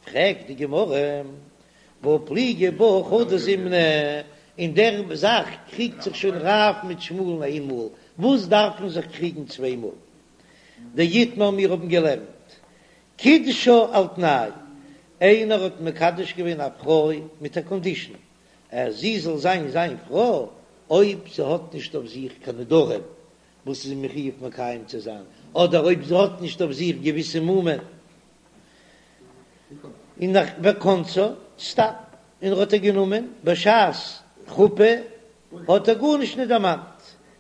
פרעגט די גמרא, והא פליגי בה חדא זימנא, אין דער זאך קריגט זיך שוין רב מיט שמואל'ן איין מאל, וואס דארף מען זיך קריגן צוויי מאל? דאיתמר מיר האבן געלערנט קידשה על תנאי, איינער האט מקדש געווען א פרוי מיט א קאנדישן אז זי זאל זיין זיין פרוי אויב זי האט נישט אויף זיך קיין נדרים וואס איז מחויב מקיים צו זיין, אדער אויב זי האט נישט אויף זיך געוויסע מומין און נאך וכנסה סתם און ער האט איר גענומען בשעת חופה האט ער גארנישט נישט דערמאנט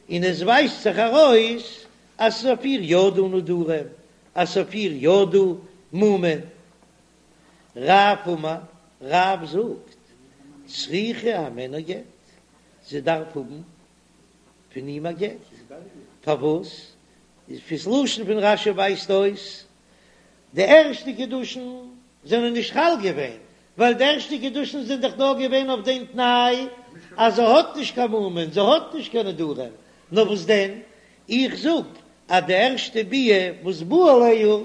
און עס ווייזט זיך ארויס אז ס'איז אויף איר יא דא נדרים אז ס'איז אויף איר יא דא מומין. רב אמר, רב זאגט, צריכה הימנו גט, זי דארף האבן פון אים א גט, פארוואס? איז פון ס'לשון פון רש"י ווייזט אויס, די ערשטע קידושין זענען נישט חל געווען, ווייל די ערשטע קידושין זענען דאך נאר געווען אויף דעם תנאי אז זי האט נישט קיין מומין, זי האט נישט קיין נדרים, נאר וואס דען, איך זאג אז די ערשטע ביאה וואס בא עליה,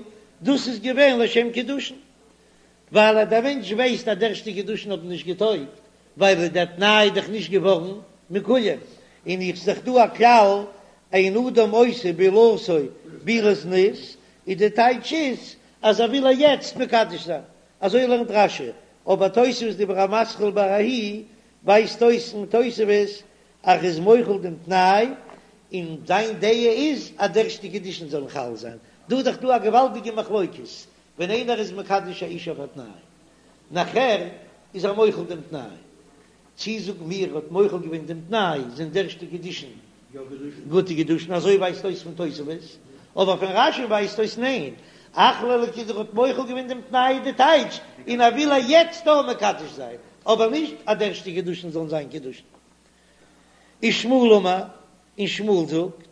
דאס איז געווען לשם קידושין, ווייל אז דער מענטש ווייסט אז די ערשטע קידושין האבן נישט געטויגט, ווייל דער תנאי איז דאך נישט געווארן מקוים, און איך זיך דא א כלל, אין אדם עושה בעילתו בעילת זנות, איז די טייטש איז אז ער וויל איר יעצט מקדש זיין, אזוי לערנט רש"י, אבער תוספות דיבור המתחיל בההיא ווייזט אויס אין תוספות אז ער איז מוחל דעם תנאי, און זיין דעה איז אז די ערשטע קידושין זאלן חל זיין, דא איז דאך דא א געוואלדיגע מחלוקת, ווען איינער איז מקדש א אישה אויף א תנאי, נאכער איז ער מוחל דעם תנאי, צי זאגן מיר ער האט מוחל געווען דעם תנאי זענען די ערשטע קידושין גוטע קידושין, אזוי ווייזט אויס פון תוספות, אבער פון רש"י ווייזט אויס ניין, אחליה לקידושי ער האט מוחל געווען דעם תנאי איז די טייטש, און ער וויל איר יעצט דא מקדש זיין, אבער נישט אז די ערשטע קידושין זאלן זיין קידושין. ושמואל אמר, און שמואל זאגט,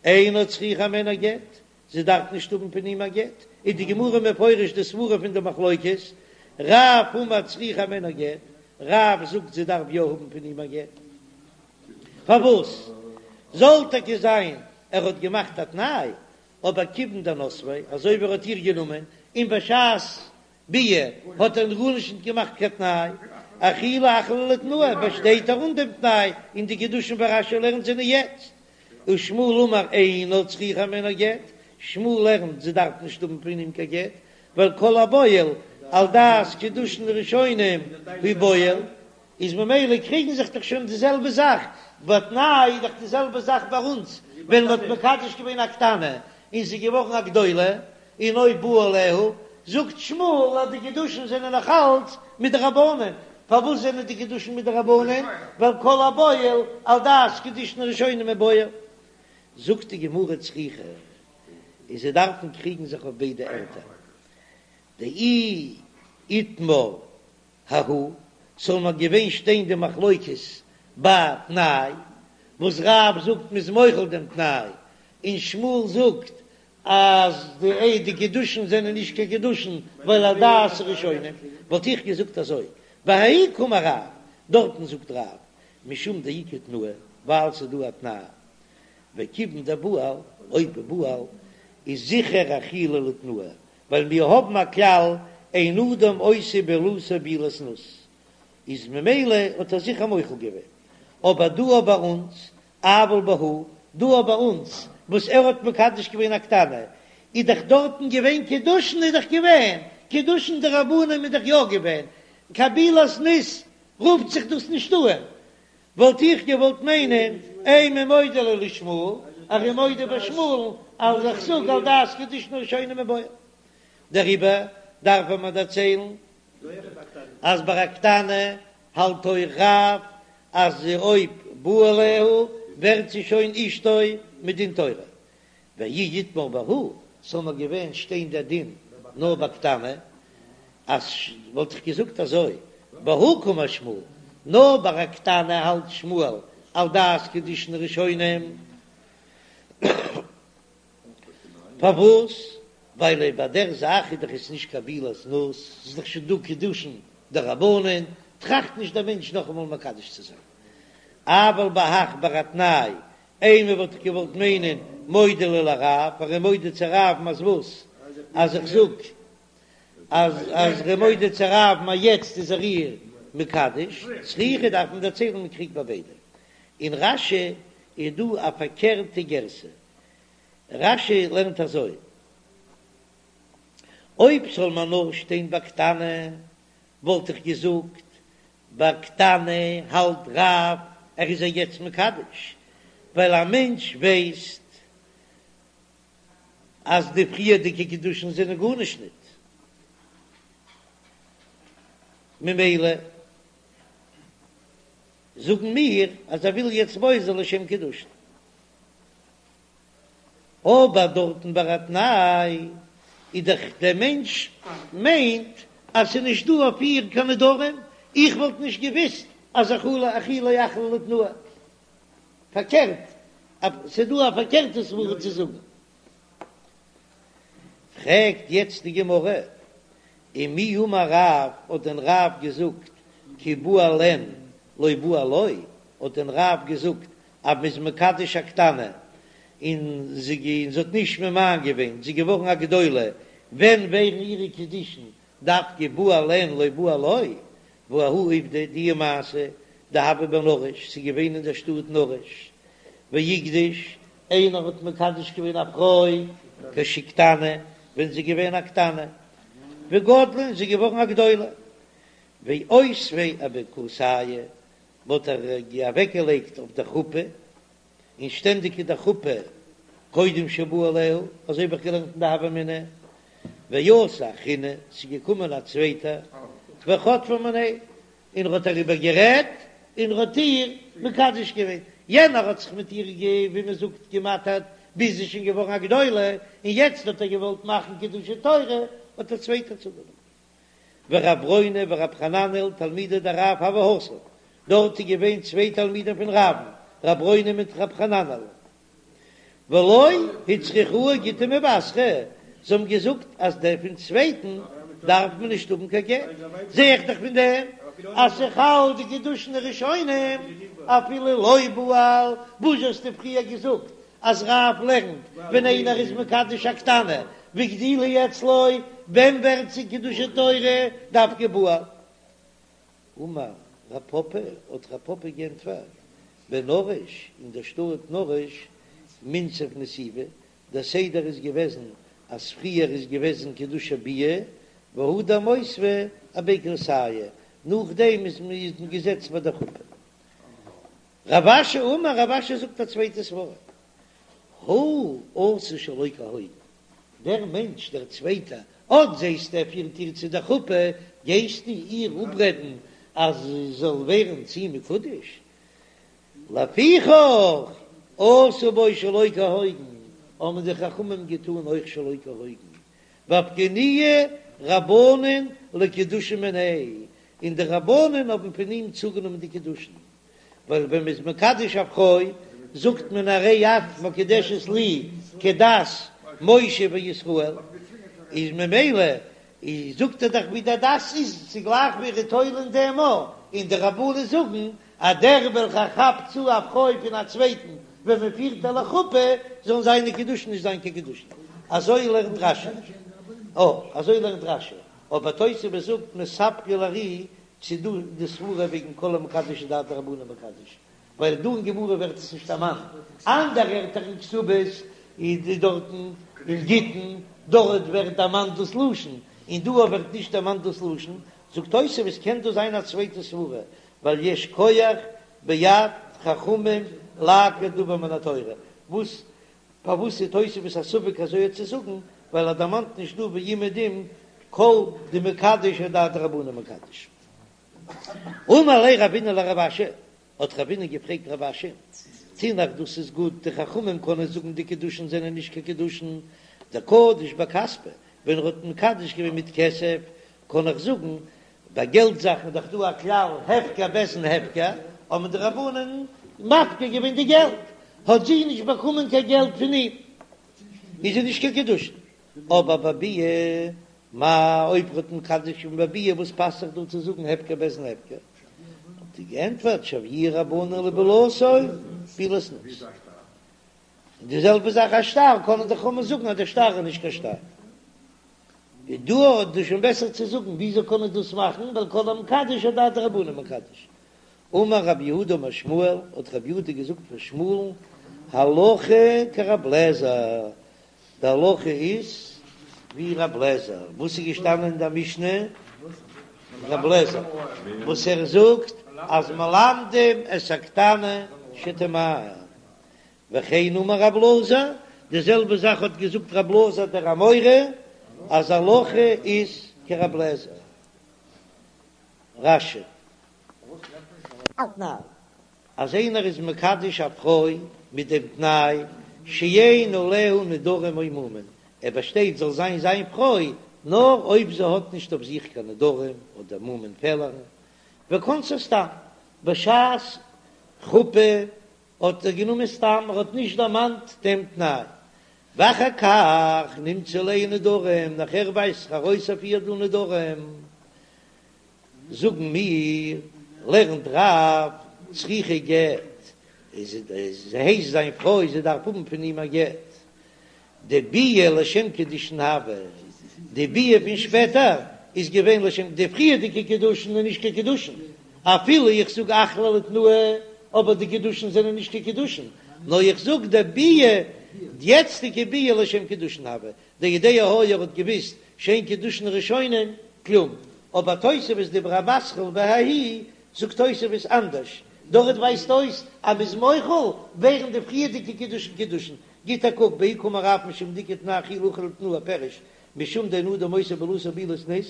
אינה צריכה הימנו גט, זי דארף נישט האבן פון אים א גט, איז די גמרא מפרש די סברא פון די מחלוקת, רב אמר צריכה הימנו גט, רב זאגט זי דארף יא האבן פון אים א גט, פארוואס זאל טאקע זיין ער האט געמאכט א תנאי, אבער כיוון דנסביה, אזוי ווי ער האט איר גענומען, און בשעת ביאה האט ער גארנישט נישט געמאכט קיין תנאי, אחולי אחליה לתנאיה, באשטייט ער אן דעם תנאי, און די קידושין ווי רש"י לערנט זענען יעצט. ושמואל אמר אינה צריכה הימנו גט, שמואל לערנט זי דארף נישט האבן פון אים קיין גט, ווייל כל הבועל על דעת קידושין ראשונים הוא בועל, איז ממילא קריגן זיך דאך שוין די זעלבע זאך, בתנאי איז דאך די זעלבע זאך ביי אונז, ווען מ'האט מקדש געווען א קטנה און זי איז געווארן א גדולה, און אויב בא עליה, זאגט שמואל אז די קידושין זענען נאך אלץ מדרבנן, פארוואס זענען די קידושין מדרבנן? ווייל כל הבועל על דעת קידושין ראשונים הוא בועל. זאגט די גמרא צריכא, און זיי דארפן קריגן זיך אויף ביידע ערטער, דאי איתמר ההוא, ס'זאל נאר געווען שטיין די מחלוקת ביי תנאי, וואס רב זאגט מ'איז מוחל דעם תנאי, און שמואל זאגט אז די די קידושין זענען נישט קיין קידושין ווייל על דעת ראשונים, וואלט איך געזאגט אזוי, בההיא קאמר רב, דארטן זאגט רב, משום דאיכא תנאי, ווייל ס'איז דא א תנאי, וכיוון דבעל, אויב בעל איז זיכער אחיליה לתנאיה, ווייל מיר האבן א כלל אין אדם עושה בעילתו בעילת זנות, איז ממילא האט ער זיכער מוחל געווען, אבער דא ביי אונז אבל בהא, דא ביי אונז וואס ער האט מקדש געווען א קטנה, איז דאך דארטן געווען קידושין איז דאך געווען קידושין דרבנן איז דאך יא געווען, קיין בעילת זנות רופט זיך דאס נישט אן, וואלט איך געוואלט מיינען אימא מודה ליה לשמואל, ער איז מודה ביי שמואל'ן אז איך זאג על דעת קידושין ראשונים הוא בועל. דעריבער דארף מען דערציילן אז ביי א קטנה האלט אויך רב אז אויב בא עליה ווערט זי שוין אשתו מדין תורה, ואי איתמר בהא, ס'זאל נאר געווען שטיין דער דין נאר ביי קטנה, אז וואלט איך געזאגט אזוי, בהא קאמר שמואל, נאר ביי א קטנה האלט שמואל על דעת קידושין ראשונים, פארוואס? ווייל אויב ביי דער זאך איז דאך עס נישט קיין בעילת זנות, ס'איז דאך שוין דא קידושין דרבנן, טראכט נישט דער מענטש נאכאמאל מקדש צו זיין. אבל בהך ביי א תנאי, אימא וואלט איך געוואלט מיינען מודה ליה לרב, ער איז מודה צו רב'ן אז וואס? אז איך זאג. אז אז ער איז מודה צו רב'ן אז יעצט איז ער איר מקדש, צריכא דארף מען דערציילן מען קריגט ביי ביידע. אין רש"י איז דא א פארקערטע גירסא, רש"י לערנט אזוי, אויב זאל מען נאר שטיין ביי קטנה וואלט איך געזאגט ביי קטנה האלט רב ער איז איר יעצט מקדש, ווייל א מענטש ווייסט אז די פריערדיגע קידושין זענען גארנישט ניט, ממילא זאגן מיר אז ער וויל יעצט בועל זיין לשם קידושין. אבער דארטן ביי א תנאי איז דאך דער מענטש מיינט אז ס'איז נישט דא אויף איר קיין נדרים, איך וואלט נישט געוויסט אז אכולי אכילה אכלה לתנאי. פארקערט, ס'איז דא א פארקערטע סברא צו זאגן. פרעגט יעצט די גמרא, ומי אמר רב, האט דען רב געזאגט כי בעל אין לא בעל לא, האט דען רב געזאגט אז מ'איז מקדש א קטנה און זי האט נישט ממאן געווען, זי איז געווארן א גדולה, ווען ווערן אירע קידושין דווקא בעל אין לא בעל לא, והא ההוא עובדא די מעשה דהוה בנרש, ס'איז געווען אין דער שטאט נרש, ואיקדיש, איינער האט מקדש געווען א פרוי כשקטנה, ווען זי איז געווען א קטנה, וגדלה און זי איז געווארן א גדולה, ואותביה אבי כורסייא, מ'האט איר אוועקגעלייגט אויף דער חופה, און שטענדיג איז די חופה קודם שבא עליה, אזוי האב איך געלערנט אין די הוה אמינא, ואתא אחרינא, ס'איז געקומען א צווייטער, וחטפה מיניה, און ער האט אריבער גערעדט, און ער האט איר מקדש געווען, יענער האט זיך מיט איר גע ווי מען זאגט געמאטערט, ביז זי איז שוין געווארן א גדולה, און יעצט האט ער געוואלט מאכן קידושי תורה, האט דער צווייטער צוגענומען. ורב ברונא ורב חננאל תלמידי דרב הוו התם, דארט איז געווען צוויי תלמידים פון רב'ן, רב ברונא מיט רב חננאל, ולא הצריכוה גיטא מבתרא, זיי האבן געזאגט אז דער פון צווייטן דארף מען נישט האבן קיין גט, זע איך דאך פון דעם אז ס'חל די קידושין הראשונים אפילו לא בעל, וואס האסטו פריער געזאגט אז רב לערנט ווען איינער איז מקדש א קטנה והגדילה אצלו, ווען ווערט זי קידושי תורה דווקא בעל? אמר רב פפא, האט רב פפא גענטפערט, בנרש, אין דער שטאט נרש, מינסב נסיבי, דער סדר איז געוועזן אז פריער איז געוועזן קידושי ביאה והדר מותבי אבי כורסייא, נאכדעם איז מען געזעצט ביי דער חופה. רב אשי אמר, רב אשי זאגט א צווייטע סברא, הוא עשה שלא כהוגן, דער מענטש דער צווייטער, אט זעסטו ער פירט איר צו דער חופה, גייסטו איר אפרעדן אז זי זאל ווערן צו אים מקודש? לפיכך עשו בו שלא כהוגן, האבן די חכמים געטאן אויך שלא כהוגן, ואפקעינהו רבנן לקידושין מיניה, און די רבנן האבן פון אים צוגענומען די קידושין, ווייל ווען מ'איז מקדש א פרוי זאגט מען הרי את מקודשת לי כדת משה וישראל, איז ממילא איז זאגט ער דאך ווי דער דת איז, ס'איז גלייך ווי ער איז תולה אין דעם א, און די רבנן זאגן אז דער וועלכער כאפט צו א פרוי פון א צווייטן ווען מען פירט איר לחופה, זאלן זיינע קידושין נישט זיין קיין קידושין. אזוי לערנט רש"י. אה, אזוי לערנט רש"י. אבער תוספות זאגט מספקא לר"י צו דא די סברה וועגן כל המקדש אדעת רבנן מקדש, ווייל דא אין גמרא ווערט עס נישט דערמאנט, אנדערע ערטער אין כתובות איז דארטן אין גיטין דארט ווערט דערמאנט דאס לשון, און דא ווערט נישט דערמאנט דאס לשון, זאגט תוספות קען דא זיין א צווייטע סברה, ווייל יש כח ביד חכמים לעקור דבר מן התורה, וואס פארוואס איז תוספות א ספק אזוי צו זאגן, ווייל ער דערמאנט נישט דא אומעדום כל דמקדש אדעת רבנן מקדש. אמר ליה רבינא לרב אשי, האט רבינא געפרעגט רב אשי, תינח דאס איז גוט, די חכמים קענען זאגן די קידושין זענען נישט קיין קידושין, דקדיש בכספא, ווען ער האט מקדש געווען מיט כסף, קען איך זאגן, ביי געלט זאכן איז דאך דא א כלל הפקר בית דין הפקר, האבן די רבנן מפקיר געווען די געלט, האט זי נישט באקומען קיין געלט פון אים, איז זי נישט קיין קידושין. אבער בביאה מאי אויב ער האט מקדש געווען בביאה וואס פאסט זיך דא צו זאגן הפקר בית דין הפקר? האט ער געענטפערט שויוה רבנן לבעילתו בעילת זנות. און די זעלבע זאך א שטר קענען די חכמים זאגן אז דער שטר איז נישט קיין שטר. איז דא איז דא שוין בעסער צו זאגן וויאזוי קען מען דאס מאכן ווייל כל המקדש אדעתא דרבנן מקדש. אמר רב יהודה אמר שמואל, האט רב יהודה געזאגט פון שמואל'ן, הלכה כרב לעזער, די הלכה איז ווי רב לעזער, וואס איז געשטאנען אין דער משנה? רב לעזער וואס ער זאגט אז מלמדים את הקטנה שתמאן, וכן אמר רב אלעזר, די זעלבע זאך האט געזאגט רב אלעזר דער אמורא, אז הלכה איז כרב לעזער. רש"י. תנאי, אז איינער איז מקדש א פרוי מיט דעם תנאי שאין עליה נדרים או מומין, ער באשטייט זאל זיין זיין פרוי נאר אויב זי האט נישט אויף זיך קיין נדרים אדער מומין פעלערן, וכנסה סתם, בשעת חופה האט ער גענומען סתם, ער האט נישט דערמאנט דעם תנאי, ואחר כך נמצאו עליה נדרים, נאכער ווייזט זיך ארויס אויף איר דא נדרים. זאגן מיר, לערנט רב, צריכה גט, איז זי הייסט זיין פרוי, זי דארף האבן פון אים א גט. דביאה לשם קידושין הוה, די ביאה פון שפעטער איז געווען לשם, די פריערדיגע קידושין איז נישט קיין קידושין, אפילו איך זאג אחליה לתנאי, אבער די קידושין זענען נישט קיין קידושין, נאר איך זאג די ביאה, די יעצטיגע ביאה לשם קידושין הוה, דיודע היה ער האט געוויסט שאין קידושין ראשונים כלום, אבער תוספות דיבור המתחיל בההיא זאגט תוספות אנדערש, דארט ווייזט אויס אז מ'איז מוחל ווערן די פריערדיגע קידושין קידושין, גיט א קוק בההיא קאמר רב משום דאיכא תנאי אכילה אוכל לתנאי פירוש משום דאין אדם עושה בעילתו בעילת זנות,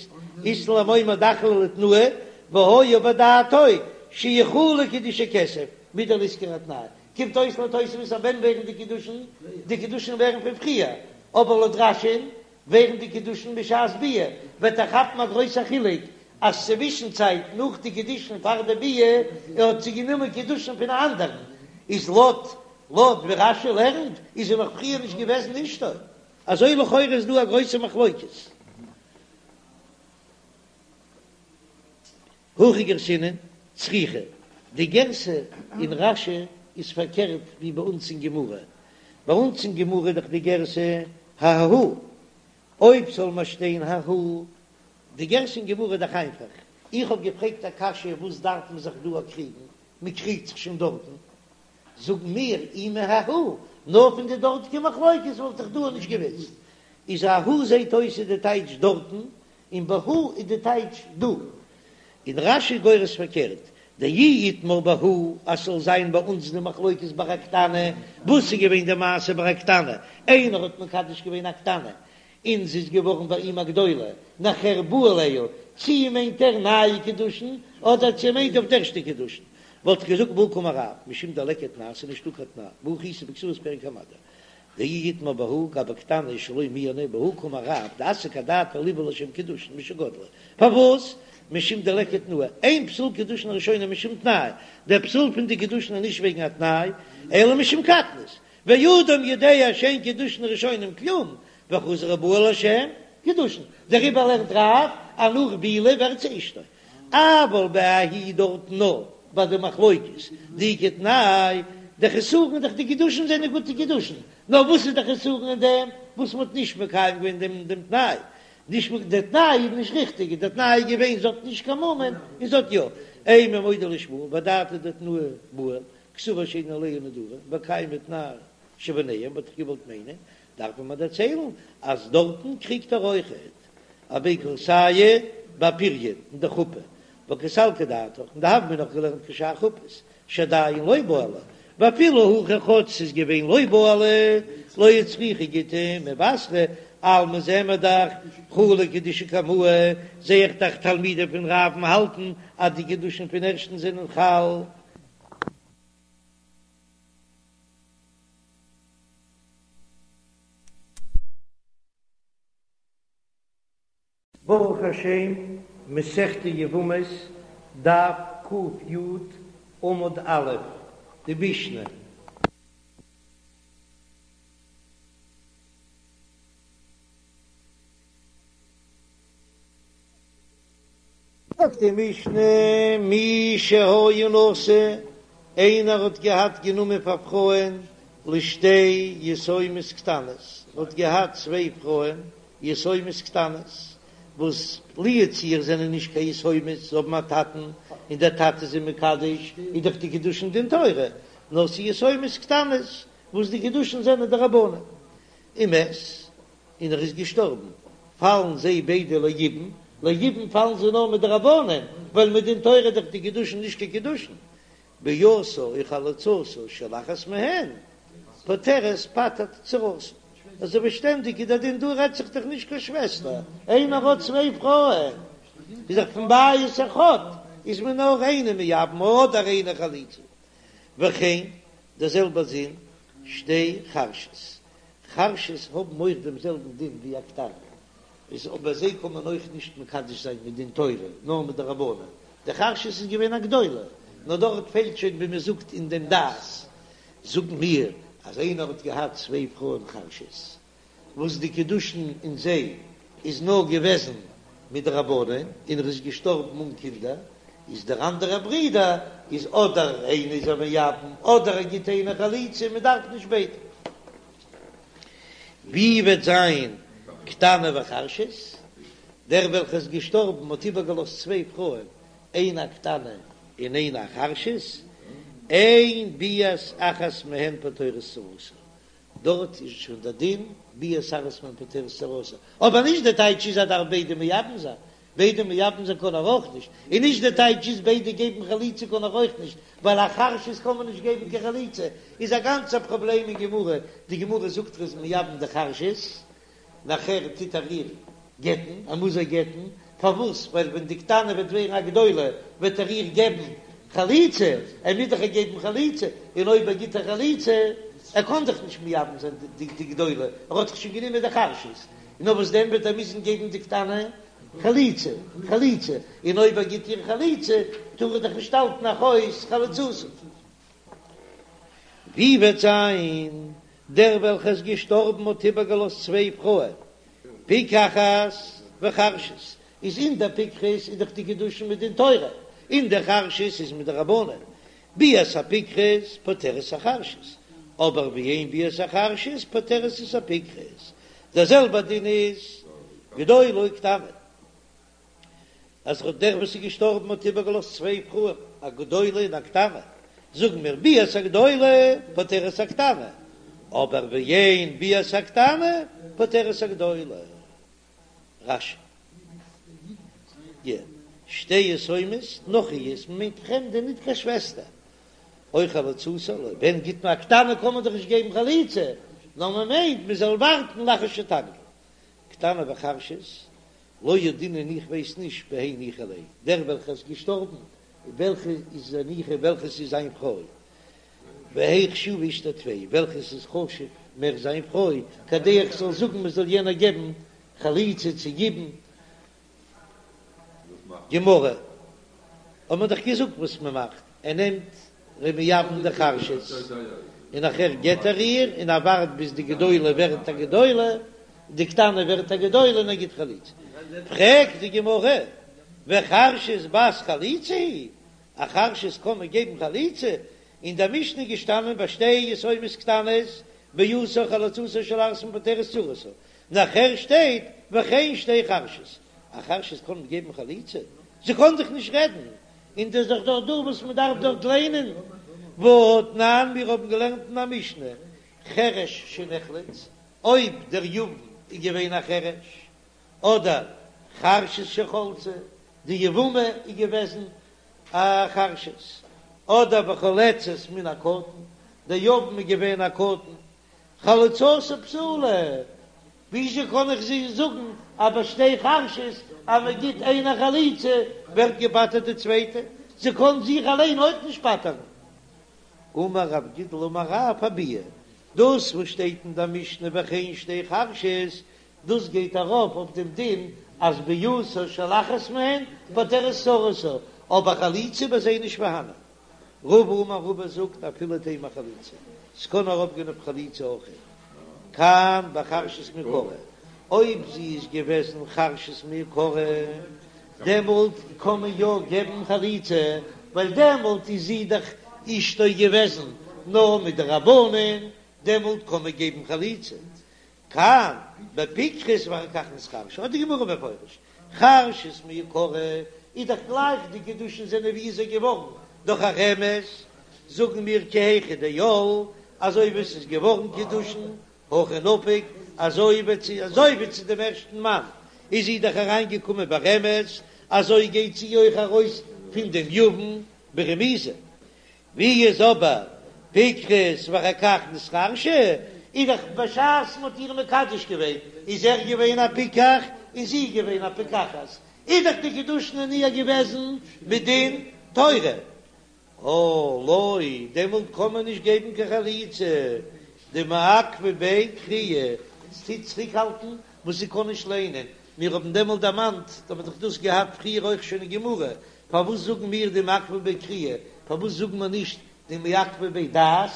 אית לן למימר דאחליה לתנאי והיה בדעתו שיכולו קידושי כסף מדלא איתכר התנאי, קומט אויס לויט תוספות אז ווען ווערן די קידושין? די קידושין ווערן פון פריער, אבער לויט רש"י'ן ווערן די קידושין בשעת ביאה, וועט ער כאפן א גרויסע חילוק אז צווישן צייט נאך די קידושין פאר די ביאה ער האט זי גענומען קידושין פון א אנדערן, איז לויט לויט ווי רש"י לערנט איז זי נאך פריער נישט געוועזן אשתו, אזוי לכאורה איז דא א גרויסע מחלוקת. הכי גרסינן, צריכה, די גירסא אין רש"י איז פארקערט ווי ביי אונז אין גמרא, ביי אונז אין גמרא איז דאך די גירסא ההוא, אויב זאל מען שטיין ההוא, די גירסא אין גמרא איז דאך איינפאך, איך האב געפרעגט א קשיא וואס דארף מען זיך דא קריגן, מען קריגט זיך שוין דארטן, זאגן מיר אי מההוא, נאר פון די דארטיגע מחלוקת וואלט איך דא נישט געוואוסט, איז ההוא זעט אויס איז די טייטש דארטן, און בהא איז די טייטש דא. און רש"י גורס פארקערט, דאי איתמר בהא אז ס'זאל זיין ביי אונז די מחלוקת ביי א קטנה, וואס איז געווען די מעשה ביי א קטנה, איינער האט מקדש געווען א קטנה און זי איז געווארן ביי אים א גדולה, נאכער בא עליה, צי מיינט ער נייע קידושין אדער צי מיינט אויף די ערשטע קידושין, וואלט איך געזאגט בהא קאמר רב, משום דליכא תנאי ס'איז נישטא קיין תנאי, והא איתא בכתובות פרק המדיר. דאי איתמר בהא גבי קטנה שלא מיאנה בהא קאמר רב דאסק אדעתיה ליבעול לשם קידושין משגדלה פארוואס משום דליכא תנאי אין פסול קידושין הראשונה משום תנאי דער פסול פון די קידושין איז נישט וועגן א תנאי אלא משום קטנות ואדם יודע שאין קידושין ראשונים כלום וחזר ובעל לשם קידושין דעריבער לערנט רב אז נאך בעילה ווערט זי אשתו אבל בההיא דארטן נאר ביי די מחלוקת דאיכא תנאי, די חסרון איז דאך די קידושין זענען גוטע קידושין, נאר וואס איז די חסרון אין דעם וואס מ'האט נישט מקיים געווען דעם דעם תנאי, נישט די תנאי איז נישט ריכטיג, די תנאי איז געווען זי האט נישט קיין מומין און זי האט יא, אימא מודה לשמואל ואדעתא דתנאי בעי כתובה שאין עליה נדרים וקיימא תנאי שביניהם וואלט איך געוואלט מיינען דארף מען מיר דערציילן אז דארטן קריגט ער אויכעט אבי כורסיא באפיריון אין די חופה וקא סלקא דעתך און די הוה מינא נאך געלערנט כשאר חופות שעדיין לא בעלה ואפילו הכי כאטש ס'איז געווען לא בעלה לא הצריכה גיטא מבתרא אלמא זעען מיר דאך חלו קידושי קמאי זע איך דאך תלמידים פון רב'ן האלטן אז די קידושין פון ערשטן זענען חל. ברוך השם, מסכת יבמות, דף ק"י, עמוד א', די משנה. זאגט די משנה, מי שהיה נשוי, איינער האט געהאט גענומען פאר פרויען לשתי יתומות קטנות, האט געהאט צוויי פרויען. יתומות קטנות, וואס לו יצוייר זענען נישט קיין יתומות, זיי האבן א טאטן און דער טאטע איז זיי מקדש, איז דאך די קידושין דין תורה, נאר ס'איז יתומות קטנות וואס די קידושין זענען דרבנן. ומת, און ער איז געשטארבן, פאלן זיי ביידע ליבום, ליבום פאלן זיי נאר מדרבנן, ווייל מדין תורה איז דאך די קידושין נישט קיין קידושין, ביאתה או חליצתה של אחת מהן פוטרת פטר'ט צרתה, אזוי ווי שטענדיג איז דער דין דא רעדט זיך דאך נישט קיין שוועסטער, איינער האט צוויי פרויען איז דאך פון בית אחד איז מען נאר איינע מייבם אדער איינע חליצה, וכן דער זעלבער דין שתי חרשות, חרשות האבן אויך דעם זעלבן דין ווי א קטנה, איז אבער זיי קען מען אויך נישט מקדש זיין מדין תורה נאר מדרבנן, די חרשת איז געווען א גדולה, נאר דארט פעלט שוין ווי מען זאגט אין דעם דעת, זאגן מיר אז איינער האט געהאט צוויי פרויען חרשות וואס די קידושין אין זיי איז נאר געוועזן מדרבנן און ער איז געשטארבן אן קינדער, איז דער אנדערער ברודער איז אדער איינע איז ער מייבם אדער ער גיט איינע חליצה מען דארף נישט ביידע. ווי וועט זיין קטנה וחרשת? דער וועלכער איז געשטארבן האט איבערגעלאזט צוויי פרויען, איינע א קטנה און איינע א חרשת, אין ביאת אחת מהן פוטרת צרתה, דארט איז שוין דער דין ביאת אחת מהן פוטרת צרתה, אבער נישט די טייטש איז אז דארף ביידע מייבם זיין, ביידע מייבם זיין קען ער אויך נישט, און נישט די טייטש איז ביידע געבן חליצה קען ער אויך נישט, ווייל א חרשת קען מען נישט געבן קיין חליצה, איז א גאנצע פראבלעם אין גמרא, די גמרא זאגט ער איז מייבם די חרשת, נאכער טוט ער איר גט'ן, ער מוז איר גט'ן, פארוואס? ווייל ווען די קטנה וועט ווערן א גדולה וועט ער איר געבן חליצה, ער מוז דאך איר געבן חליצה, און אויב ער גיט איר חליצה, ער קען דאך נישט מייבם זיין די גדולה, ער האט דאך שוין גענומען די חרשת, נאר וואס דען וועט ער מוזן געבן די קטנה חליצה, חליצה, און אויב ער גיט איר חליצה טאר ער דאך נישט האלטן אחות חלוצתו. ווי וועט זיין דער וועלכער איז געשטארבן האט איבערגעלאזט צוויי פרויען, פיקחת וחרשת, איז אין דער פיקחת איז דאך די קידושין מדין תורה, אין דער חרשת איז מדרבנן, ביאת הפיקחת פוטרת החרשת, אבער ואין ביאת החרשת פוטרת את הפיקחת, דער זעלבער דין איז גדולה וקטנה, אז דער וואס איז געשטארבן האט איבערגעלאזט צוויי פרויען, א גדולה און א קטנה, זאגן מיר ביאת הגדולה פוטרת הקטנה, אבער ואין ביאת הקטנה פוטרת הגדולה. רש"י. שתי יתומות נכריות, מ'מיינט פרעמדע ניט קיין שוועסטער. או חלוצתה, ווען גיט מען א קטנה קען מען דאך נישט געבן חליצה, נאר מען מיינט מען זאל ווארטן לאחר שתגדיל. קטנה וחרשת, לא ידעינן איך ווייס נישט בהי ניחא ליה, דער וועלכער איז געשטארבן, וועלכע איז ניחא וועלכעס איז זיין פרוי, והי חשובה אשתו טפי, וועלכעס איז חשוב מער זיין פרוי, כדי איך זאל זאגן מען זאל יענער געבן חליצה צו יבום. גמרא, האט מען דאך געזאגט וואס מען מאכט, ער נעמט ער איז מייבם די חרשת, און נאכער גט ער איר, און ער ווארט ביז די גדולה ווערט א גדולה, די קטנה ווערט א גדולה און ער גיט חליצה. פרעגט די גמרא, וחרשת בת חליצה היא, א חרשת קען מען געבן חליצה? אין דער משנה איז געשטאנען ביי שתי יתומות קטנות ביאתה או חליצתה של אחת מהן פוטרת צרתה, נאכער שטייט וכן שתי חרשות, א חרשת קען מען געבן חליצה? זי קען דאך נישט רעדן, און דאס איז דאך דאך דא וואס מען דארף דארט ליינען, והתנן מיר האבן געלערנט אין א משנה חרש שנחלץ, אויב דער יבם איז געווען א חרש, אדער חרשת שחלצה, די יבמה איז געוועזן א חרשת, אדער וחולצת מן הקטן, דער יבם איז געווען א קטן, חליצתה פסולה, וויאזוי קען איך זי זאגן אז ביי שתי חרשות אז מען גיט איינע חליצה ווערט געפטר'ט די צווייטע, זי קען זיך אליין אויך נישט פטר'ן. אמר רב גידל אמר רב אביאה, דאס וואס שטייט אין דער משנה וכן שתי חרשות, דאס גייט ארויף אויף דעם דין אז ביאתה של אחת מהן פוטרת צרתה, אבער חליצה ביי זיי נישט פארהאנען. רבא אמר רבא זאגט אפילו תימא חליצה, ס'קען ארויפגיין אויף חליצה אויך, כאן בחרשת מעיקרא, אויב זי איז געוועזן חרשת מעיקרא דעמאלט קען מען יא געבן חליצה, ווייל דעמאלט איז זי דאך אשתו געוועזן נאר מדרבנן, דעמאלט קען מען געבן חליצה. כאן בפיקחת ואחר כך נתחרשה, האט די גמרא מפורש, חרשת מעיקרא איז דאך גלייך די קידושין זענען ווי איז ער געווארן דורך א רמז, זאגן מיר כי היכי דעייל אזוי ווי עס איז געווארן קידושין הכי נפיק אזוי ווי צו אזוי ווי צו דעם ערשטן מאן איז זי דאך אריין געקומען ברמז אזוי גייט זי אויך ארויס פון דעם יבם ברמיזה. ווי איז אבער פיקחת ואחר כך נתחרשה, איז דאך בשעת מ'האט איר מקדש געווען איז ער געווען א פיקח און זי איז געווען א פיקחת, איז דאך די קידושין אין איר געוועזן מדין תורה, אה לא, דעמאלט קען מען נישט געבן קיין חליצה, דמעכבא ביה קריאה, ס'טוט צוריקהאלטן וואס זי קען נישט ליינען, מיר האבן דעמאלט דערמאנט, האט מען דאך דאס געהאט פריער אויך שוין אין גמרא, פארוואס זאגן מיר דמעכבא ביה קריאה? פארוואס זאגן מיר נישט דמעכבא ביה דעת?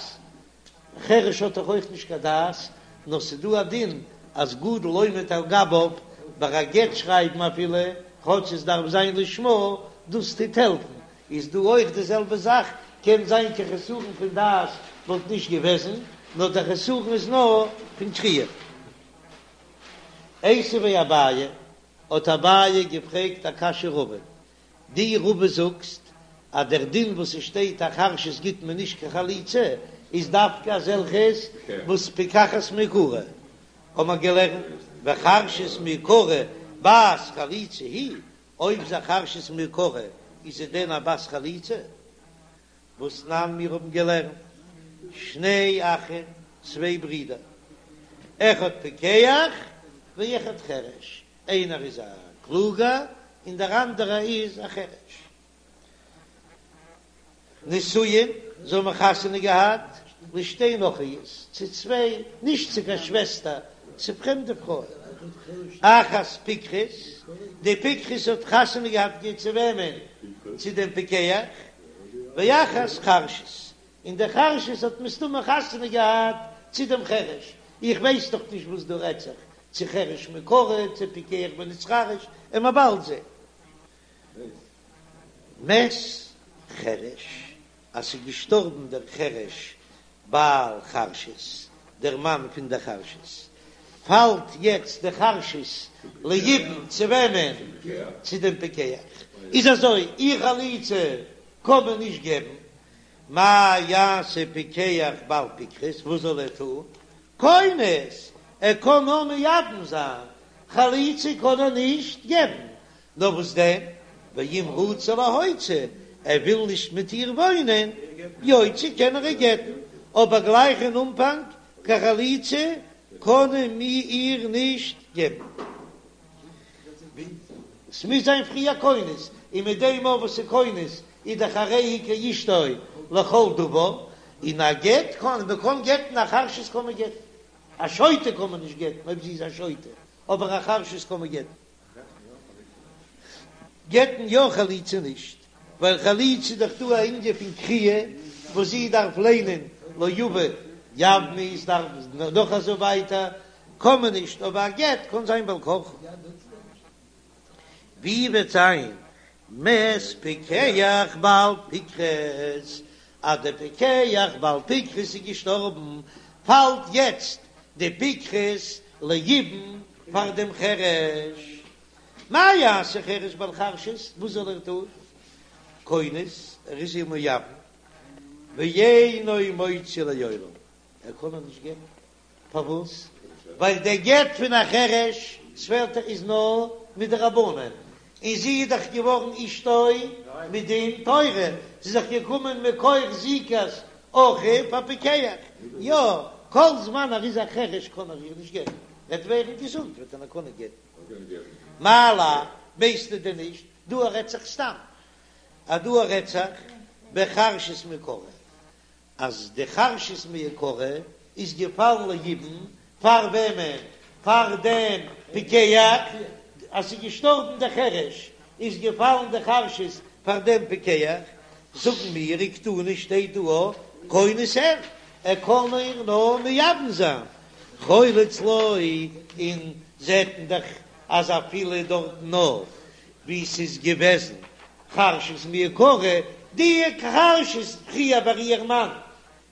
חרש האט דאך אויך נישט קיין דעת, נאר ס'דא א דין אז גדול עומד על גביו ביי א גט שרייבן אפילו כאטש עס דארף זיין לשמה, דאס טוט העלפן, איז דא אויך די זעלבע זאך, קען זיין קיין חסרון פון דעת וואלט נישט געוועזן, נאר דער חסרון איז נאר פון קריאה. איתיביה אביי, האט אביי געפרעגט א קשיא רבא, דו רבא זאגסט אז דער דין וואס עס שטייט א חרשת גיט מען נישט קיין חליצה איז דווקא אזעלכעס וואס פיקחת מעיקרא, האט מען געלערנט וחרשת מעיקרא בת חליצה היא, אויב זי חרשת מעיקרא איז זי דען א בת חליצה? והתנן מיר האבן געלערנט שני אחים צוויי ברידער אחד פיקח ואחד חרש, איינער איז א קלוגער און דער אנדערער איז א חרש. נשואים, זיי האבן חתונה געהאט לשתי נכריות, צו צוויי, נישט צו קיין שוועסטער, צו פרעמדע פרויען. אחת פיקחת, די פיקחת האט חתונה געהאט צו וועמען? צו דעם פיקח. ואחת חרשת, און די חרשת האט מסתמא חתונה געהאט צו דעם חרש, איך ווייס דאך נישט וואס דא רעדט זיך, צו חרש מעיקרא, צו פיקח ונתחרש, און מ'וועט באלד זען. מת חרש, אז ס'איז געשטארבן דער חרש בעל חרשת, דער מאן פון דער חרשת, פאלט יעצט די חרשת ליבום צו וועמען? צו דעם פיקח. איז אזוי, איר חליצה קען מען נישט געבן, מה יעשה פיקח בעל פיקחת, וואס זאל ער טון? כונס, ער קען נאר מייבם זיין, חליצה קען ער נישט געבן, נאר וואס דען, ואם רצה להוציא, ער וויל נישט מיט איר וואוינען, יוציא קען ער איר גט'ן, אבער גלייך אין אנפאנג קיין חליצה קען מען איר נישט געבן. ס'מוז זיין פריער כונס, און מיט דעם אויך וואס איז כונס איז דאך הרי היא כאשתו לכל דבר, און א גט קען מען קען גט'ן א חרשת קען מען גט'ן, א שוטה קען מען נישט גט'ן אויב זי איז א שוטה, אבער א חרשת קען מען גט'ן. גט'ן יא חליצה נישט, ווייל חליצה איז דאך דא א ענין פון קריאה וואס זי דארף ליינען לא יבא יבמי איז דארף נאך אזוי ווייטער קען מען נישט אבער א גט קען זיין בעל כרחו. ווי וועט זיין מת פיקח בעל פיקחת אז דער פיקח בעל פיקחת איז געשטארבן פאלט יעצט די פיקחת ליבום פאר דעם חרש. מה יעשה חרש בעל חרשת, וואס זאל ער טון? כונס, ער איז איר מייבם, ואינו מוציא לעולם, ער קען איר נישט גט'ן, פארוואס? ווייל דער גט פון א חרש ס'פעלט איז נאר מדרבנן, און זי איז דאך געווארן אשתו מדין תורה, זי איז דאך געקומען מכח זיקת אחיו הפיקח, יא, כל זמן ער איז א חרש קען ער איר נישט גט'ן, וועט ווערן געזונט וועט ער נאר קענען גט'ן. מאי לאו, ווייסטו דען נישט, דא רעדט זיך סתם, אז דא רעדט זיך בחרשת מעיקרא, אז די חרשת מעיקרא איז געפאלן ליבום פאר וועמען? פאר דעם פיקח, אז ס'איז געשטארבן דער חרש איז געפאלן די חרשת פאר דעם פיקח, זאגן מיר וקתני שטייט דא א כונס אין, ער קען איר נאר מייבם זיין, חולץ לא, און זעט מען דאך אז אפילו דארטן נאר ווי ס'איז געוועזן חרשת מעיקרא, די חרשת פריער ביי איר מאן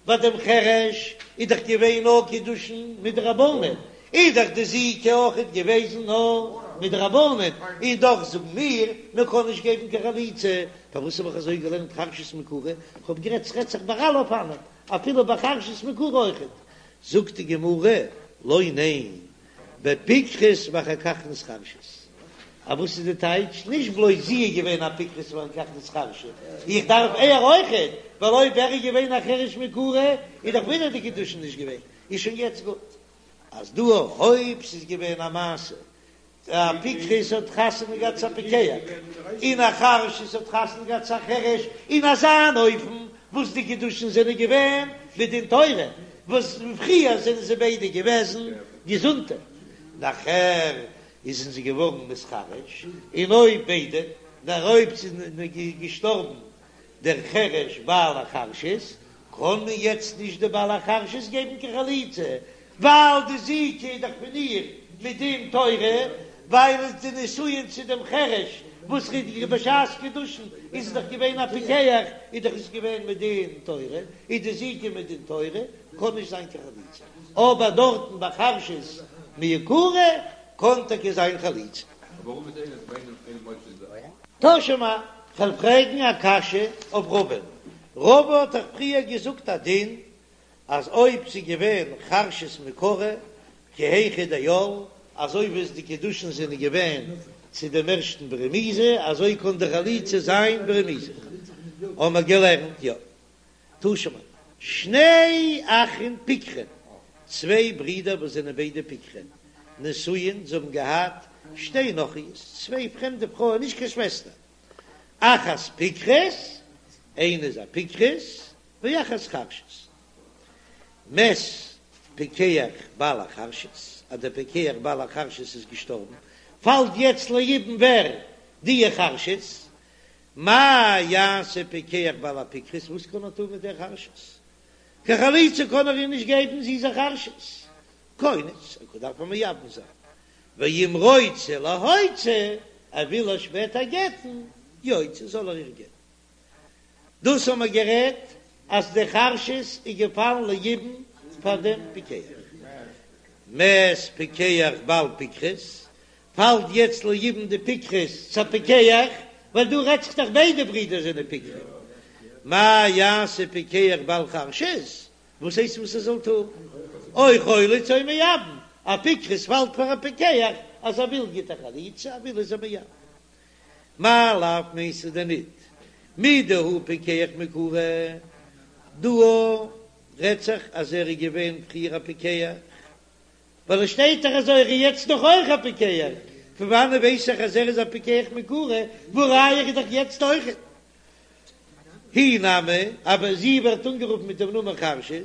ביי דעם חרש איז דאך געווען נאר קידושין מדרבנן, און. איז דאך די זיקה אויכעט געוועזן נאר מדרבנן, און דאך זאגן מיר מען קען נישט געבן קיין חליצה, פארוואס האב איך אזוי געלערנט חרשת מעיקרא? כ'האב גערעדט ס'רעדט זיך ביי אלע אופנים, אפילו ביי חרשת מעיקרא אויכעט. זאגט די גמרא, לא ניין, בפיקחת ואחר כך נתחרשת. א וואס איז די טייטש? נישט בלויז זי איז געווען א פיקחת ואחר כך נתחרשה, איך דארף ער אויכעט, ווייל אויב ער איז געווען א חרש מעיקרא איז דאך ווידער די קידושין נישט געווען, איז שוין יעצט גוט אז דא אויב ס'איז געווען א מעשה א פיקחת האט חתונה געהאט צו א פיקח, און א חרשת האט חתונה געהאט צו א חרש, אין אזא אן אופן וואס די קידושין זענען געווען מדין תורה, וואס פריער זענען זיי ביידע געוועזן געזונטע, נאכער איז זי געווארן נתחרש, און אויב ביידע, נאר אויב ס'איז געשטארבן דער חרש בעל החרשת, קען מען יעצט נישט די בעל החרשת געבן קיין חליצה, ווייל די זיקה איז דאך פון איר מדין תורה, ווייל עס די נישואין צו דעם חרש וואס איז בשעת קידושין איז עס דאך געווען א פיקח, איז דאך עס געווען מדין תורה, איז די זיקה מדין תורה, קען נישט זיין קיין חליצה, אבער דארטן ביי חרשת מעיקרא קען טאקע זיין חליצה. תא שמע, כ'וועל פרעגן א קשיא אויף רבא'ן. רבא האט דאך פריער געזאגט א דין אז אויב ס'איז געווען חרשת מעיקרא כי היכי דעייל, אזוי ווי עס די קידושין זענען געווען צו דעם ערשטן ברמיזה, אזוי קען די חליצה זיין ברמיזה. האמער געלערנט, יא. תא שמע. שני אחין פיקחין, צוויי ברידער וואס זענען ביידע פיקחין, נשואין, זיי האבן געהאט שתי נכריות, צוויי פרעמדע פרויען, נישט קיין שוועסטער, אחת פיקחת, איינע איז א פיקחת, ואחת חרשת. מת פיקח בעל החרשת, אז דער פיקח בעל החרשת איז געשטארבן, פאלט יעצט ליבום ווער? די חרשת, מה יעשה פיקח בעל הפיקחת, וואס קען ער טון מיט דער חרשת? קיין חליצה קען ער איר נישט געבן, זי איז א חרשת. כונס, ער דארף איר מייבם זיין. ואם רוצה להוציא, ער וויל איר שפעטער גט'ן, יוציא, זאל ער איר גט'ן. דאס האבן מיר גערעדט אז די חרשת איז געפאלן ליבום פאר דעם פיקח. מת פיקח בעל פיקחת, פאלט יעצט ליבום די פיקחת צו א פיקח, ווייל דא רעדט זיך דאך ביידע ברידער זענען פיקחים. מה יעשה פיקח בעל חרשת? וואס הייסט וואס ער זאל טון? או חולץ או מייבם, א פיקחת פאלט פאר א פיקח, אז ער וויל גיט ער חליצה, ער וויל איז ער מייבם. מאי לאו מיינסטו דען ניט מדהוא פיקח מעיקרא? דא רעדט זיך אז ער איז געווען פריער א פיקח, ווייל עס שטייט דאך אזוי ער איז יעצט נאך אויך א פיקח, פון וואנעט ווייס איך אז ער איז א פיקח מעיקרא, והא ראיה ער איז דאך יעצט אויך. היא נמי, אבער זי ווערט אנגערופן מיט דעם נאמען חרשת,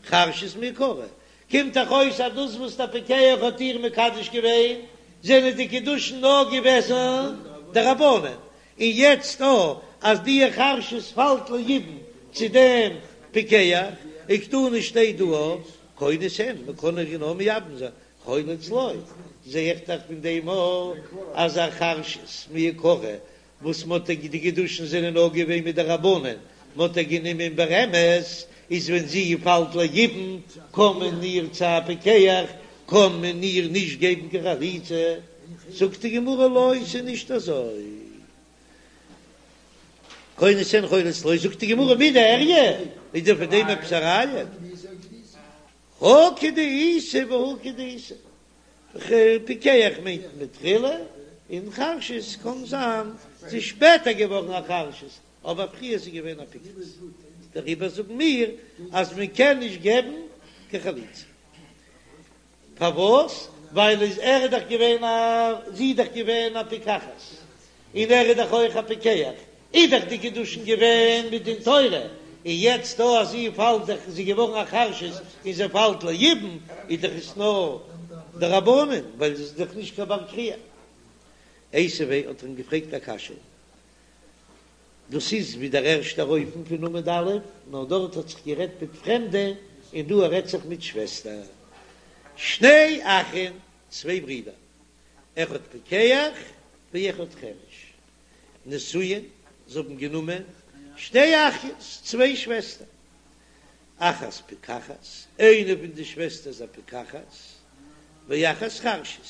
חרשת מעיקרא, קומט דאך אויס אז דאס וואס דער פיקח האט איר מקדש געווען, זענען די קידושין נאר געוועזן דרבנן, און יעצט או אז די חרשת פאלט ליבום צו דעם פיקח, וקתני שטייט דא או כונס אין, מען קען איר נאר מייבם זיין, חולץ לא, זע איך דאך פון דעם או אז א חרשת מעיקרא וואס מ'האט איר די קידושין זענען נאר געווען מדרבנן, מ'האט איר גענומען ברמז, איז ווען זי פאלט ליבום קען מען איר צו א פיקח קען מען איר נישט געבן קיין חליצה, זאגט די גמרא לא ס'איז נישט אזוי, כונס אין חולץ לא, זאגט די גמרא מידי איריא, איז דען פון דעם עפעס א ראיה? הא כדאיתא והא כדאיתא. פיקח מיינט מתחילה, און חרשת קאן זיין ס'איז שפעטער געווארן א חרשת, אבער פריער איז זי געווען א פיקחת, דעריבער זאגן מיר אז מען קען נישט געבן קיין חליצה. פארוואס? ווייל איז ער איז דאך געווען א זי איז דאך געווען א פיקחת, און ער איז דאך אויך א פיקח, איז דאך די קידושין געווען מדין תורה, און יעצט דא אז זי פאלט דאך זי געווארן א חרשת און זי פאלט ליבום, איז דאך עס נאר דרבנן, ווייל זי איז דאך נישט קיין בר קריאה. איתיביה האט ער אים געפרעגט א קשיא, דאס איז ווי דער ערשטער אופן פון עמוד א', נאר דארט האט זיך גערעדט מיט פרעמדע, און דא רעדט זיך מיט שוועסטער. שני אחים, צוויי ברידער, אחד פיקח ואחד חרש, נשואין, זיי האבן גענומען שתי אחיות, צוויי שוועסטער, אחת פיקחת, איינע פון די שוועסטער איז א פיקחת, ואחת חרשת,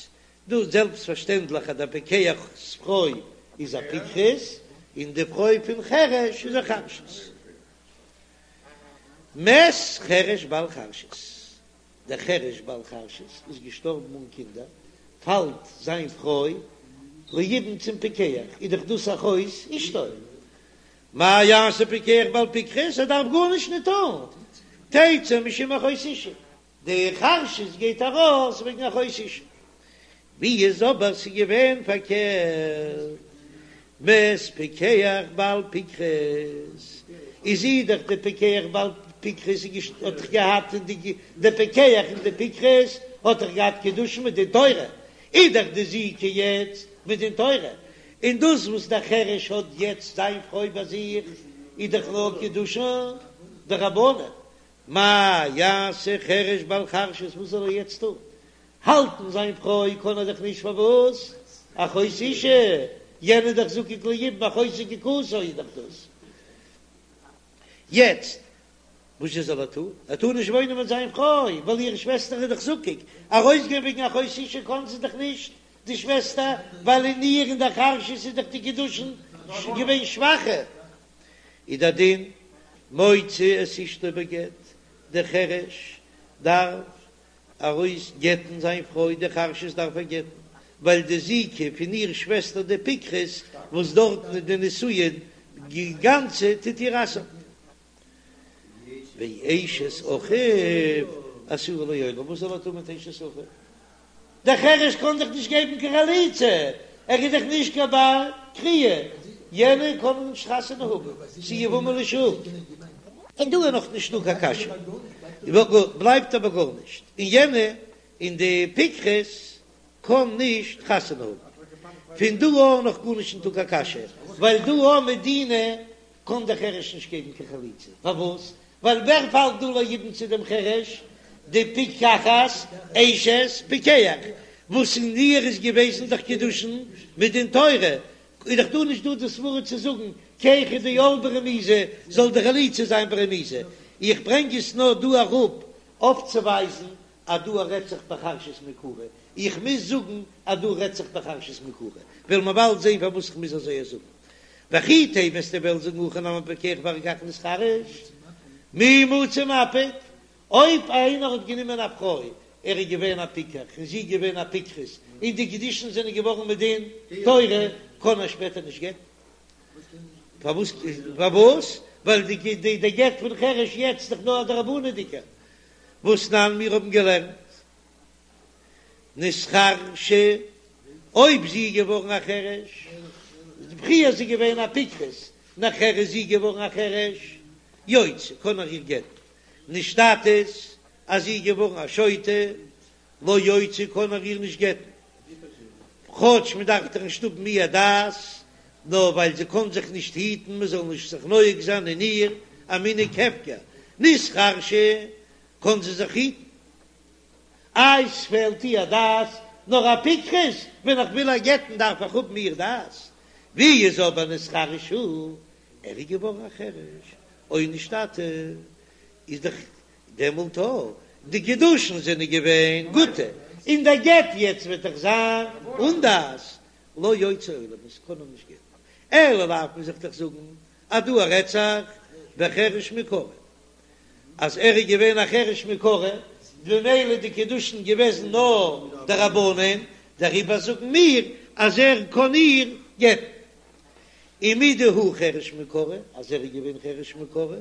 דא זעלבסט פארשטענדליך אז דער פיקח'ס פרוי איז א פיקחת, און די פרוי פון חרש איז א חרשת. מת חרש בעל חרשת, דער חרש בעל חרשת איז געשטארבן אן קינדער, פאלט זיין פרוי ליבום צום פיקח, איז דאך דאס אחות אשתו. מה יעשה פיקח בעל פיקחת, ער דארף גארנישט נישט טון, תצא משום אחות אשה, די חרשת גייט ארויס וועגן אחות אשה. ווי איז אבער ס'איז געווען פארקערט, מת פיקח בעל פיקחת, איז זי דאך די פיקח בעל פיקחת האט דאך געהאט די די פיקח און די פיקחת האט דאך געהאט קידושין מדין תורה, איז דאך די זיקה יעצט מדין תורה, און דאס וואס דער חרש האט יעצט זיין פרוי ביי זיך איז דאך נאר קידושין דרבנן, מה יעשה חרש בעל חרשת וואס זאל ער יעצט טון? האלטן זיין פרוי קען ער דאך נישט פארוואס? אחות אשה, יענער איז דאך זקוק ליבום אחות זקוקתו איז דאך דאס. יעצט וואס זשע זאל ער טון? ער טאר נישט וואוינען מיט זיין פרוי ווייל איר שוועסטער איז דאך זקוק, ארויסגיין וועגן אחות אשה קען זי דאך נישט די שוועסטער ווייל אין איר אין דער חרשת איז דאך די קידושין געווען שוואכער. איז דער דין מוציא את אשתו בגט, דער חרש דארף ארויס גט'ן זיין פרוי די חרשת דארף ער גט'ן, ווייל די זיקה פון איר שוועסטער די פיקחת וואס דארטן איז די נישואין גאנצע טוט איר אסר'ן. ואשת אחיו אסורה לעולם, וואס זאל ער טון מיט אשת אחיו? דער חרש קען דאך נישט געבן קיין חליצה, ער איז דאך נישט קיין בר קריאה, יענער קען נישט חתונה האבן, ס'איז יבמה לשוק. און דא איז נאך נישט דא קיין קשיא, בלייבט אבער גארנישט, און יענע און די פיקחת קען נישט חתונה האבן. פון דא אן נאך גארנישט נישטא קיין קשיא, ווייל דא אן מדינא קען דער חרש נישט געבן קיין חליצה, פארוואס? ווייל ווער פאלט דא ליבום צו דעם חרש? די פיקחת אשת פיקח, וואס אין איר איז געוועזן דאך קידושין מדין תורה, איז דאך דא נישט דא די סברה צו זאגן כי היכי דעל ברמיזה זאל די חליצה זיין ברמיזה, איך ברענג עס נאר דא אראפ אויפצוווייזן אז דא רעדט זיך בחרשת מעיקרא, איך מוז זאגן אז דא רעדט זיך בחרשת מעיקרא, וועלן מיר באלד זען פארוואס איך מוז אזוי זאגן. וכי תימא וועסטו וועלן זאגן הכא נמי פיקח ואחר כך נתחרש, מי מצי מפיק, אויב איינער האט גענומען א פרוי, ער איז געווען א פיקח און זי איז געווען א פיקחת, און די קידושין זענען געווארן מדין תורה, קען ער שפעטער נישט גט'ן. פארוואס? פארוואס? ווייל די די גט פון חרש יעצט איז דאך נאר א דרבנן'דיגער. והתנן מיר האבן געלערנט נתחרשה, אויב זי איז געווארן א חרש, פריער איז זי געווען א פיקחת, נאכער איז זי געווארן א חרש, יוציא, קען ער איר גט'ן, נשתטית, אז זי איז געווארן א שוטה, לא יוציא קען ער איר נישט גט'ן, כאטש מען דארף דאך נישט האבן איר דעת, נאר ווייל זי קען זיך נישט היטן מען זאל נישט זיך נוהג זיין אין איר א מנהג הפקר, נתחרשה קען זי זיך היטן. איי ס'פעלט איר דעת, נאר א פיקחת, ווען איך וויל איר גט'ן דארף איך האבן איר דעת, ווי איז אבער נתחרש הוא, ער איז געווארן א חרש, או נשתטה, איז דאך דעמאלט אויך די קידושין זענען געווען גוטע, און דער גט יעצט וועט דאך זיין אן דעת, לא יוציא עולם, עס קען אים נישט גט'ן, אלא לאו מוז איך דאך זאגן אז דא רעדט זיך בחרש מעיקרא, אז ער איז געווען א חרש מעיקרא, במילא די קידושין געוועזן נאר דרבנן, דעריבער זאגן מיר אז ער קען איר גט'ן. ומדהוא חרש מעיקרא, אז ער איז געווען חרש מעיקרא,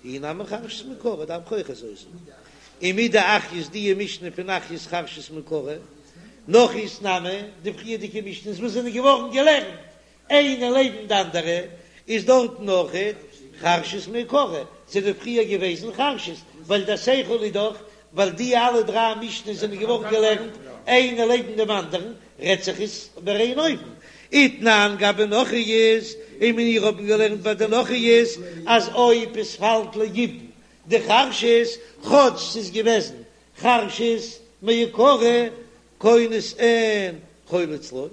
היא נמי חרשת מעיקרא, דארף איך אויך אזוי זאגן. ומדאחיות די משנה פון אחיות חרשת מעיקרא, נכריות נמי, די פריערדיגע משנה'ס וואס זענען געווארן געלערנט איינע לעבן די אנדערע, איז דארטן אויכעט חרשת מעיקרא, זענען פריער געוועזן חרשת, ווייל דער שכל איז דאך ווייל די אלע דריי משנה'ס זענען געווארן געלערנט איינע לעבן דעם אנדערן, רעדט זיך עס איבער איין אופן. ותנן גבי נכריות, און מיר האבן געלערנט ביי די נכריות אז אויב עס פאלט ליבום די חרשת, כאטש ס'איז געוועזן חרשת מעיקרא, כונס אין חולץ לא,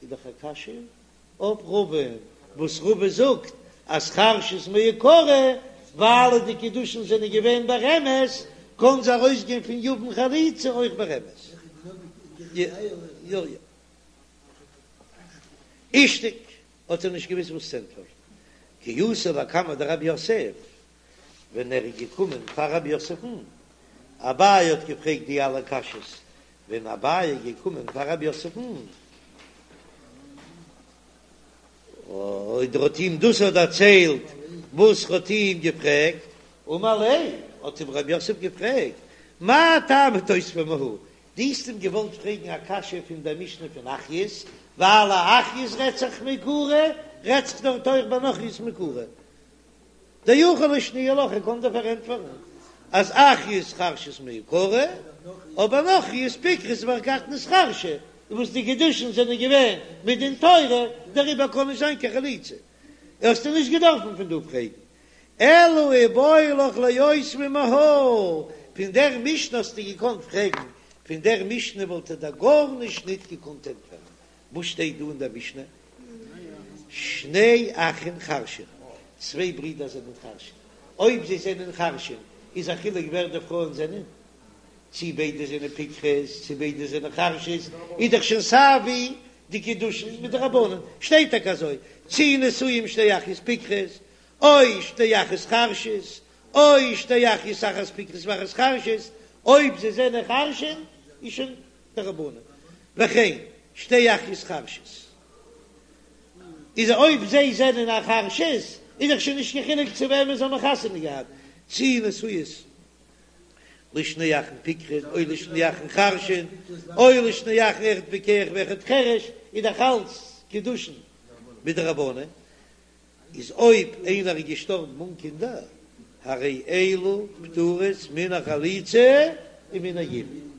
איז דאך א קשיא אויף רבא'ן וואס רבא זאגט אז חרשת מעיקרא ווייל די קידושין זענען געווען ברמז, קען זי ארויסגיין פון יבם חליצה אויך ברמז. יא יא. אישתיק האט ער נישט געוואוסט וואס צו ענטפערן. כי אתא לקמיה דרב יוסף, ווען ער איז געקומען פאר רב יוסף'ן, אביי האט געפרעגט די אלע קשיות, ווען אביי איז געקומען פאר רב יוסף'ן, און ער האט אים דאס האט דערציילט וואס ער האט אים געפרעגט, אמר ליה, האט אים רב יוסף געפרעגט, מאי טעמא תותביה מהא, דו האסט אים געוואלט פרעגן א קשיא פון דער משנה פון אחיות, ווייל א אחיות רעדט זיך מעיקרא, רעדט זיך דארט אויך ביי נכריות מעיקרא. דיכול לשנויי לך, ער קען דיר פארענטפערן אז אחיות חרשות מעיקרא, אבער נכריות פיקחות ואחר כך נתחרשו, וואס די קידושין זענען געווען מדין תורה, דעריבער קען נישט זיין קיין חליצה. האסטו נישט געדארפן פון דא פרעגן. אלא איבעי לך לאותביה מהא, פון דער משנה האסטו געקאנט פרעגן, פון דער משנה וואלט ער דיר גארנישט ניט געקאנט ענטפערן. וואס שטייט דא אין דער משנה? שני אחין חרשין, צוויי ברידער זענען חרשין, אויב זיי זענען חרשין איז א חילוק ווער די פרויען זענען, צי ביידע זענען פיקחות צי ביידע זענען חרשות, איז דאך שוין סייווי די קידושין מדרבנן, שטייט טאקע אזוי, צי נשואים שתי אחיות פיקחות, או שתי אחיות חרשות, או שתי אחיות אחת פיקחות ואחת חרשת, אויב זיי זענען חרשין איז שוין דרבנן, וכן שתי אחיות חרשות, איז אויב זיי זענען א חרשות איז דאך שוין נישט קיין חילוק צו וועמען זיי האבן חתונה געהאט, צי נשואות לשני אחין פיקחין או לשני אחין חרשין, או לשני אחין אחד פיקח ואחד חרש, איז דאך אלץ קידושין מדרבנן, איז אויב איינער איז געשטארבן אן קינדער, הרי אלו פטורות מן החליצה ומן היבום.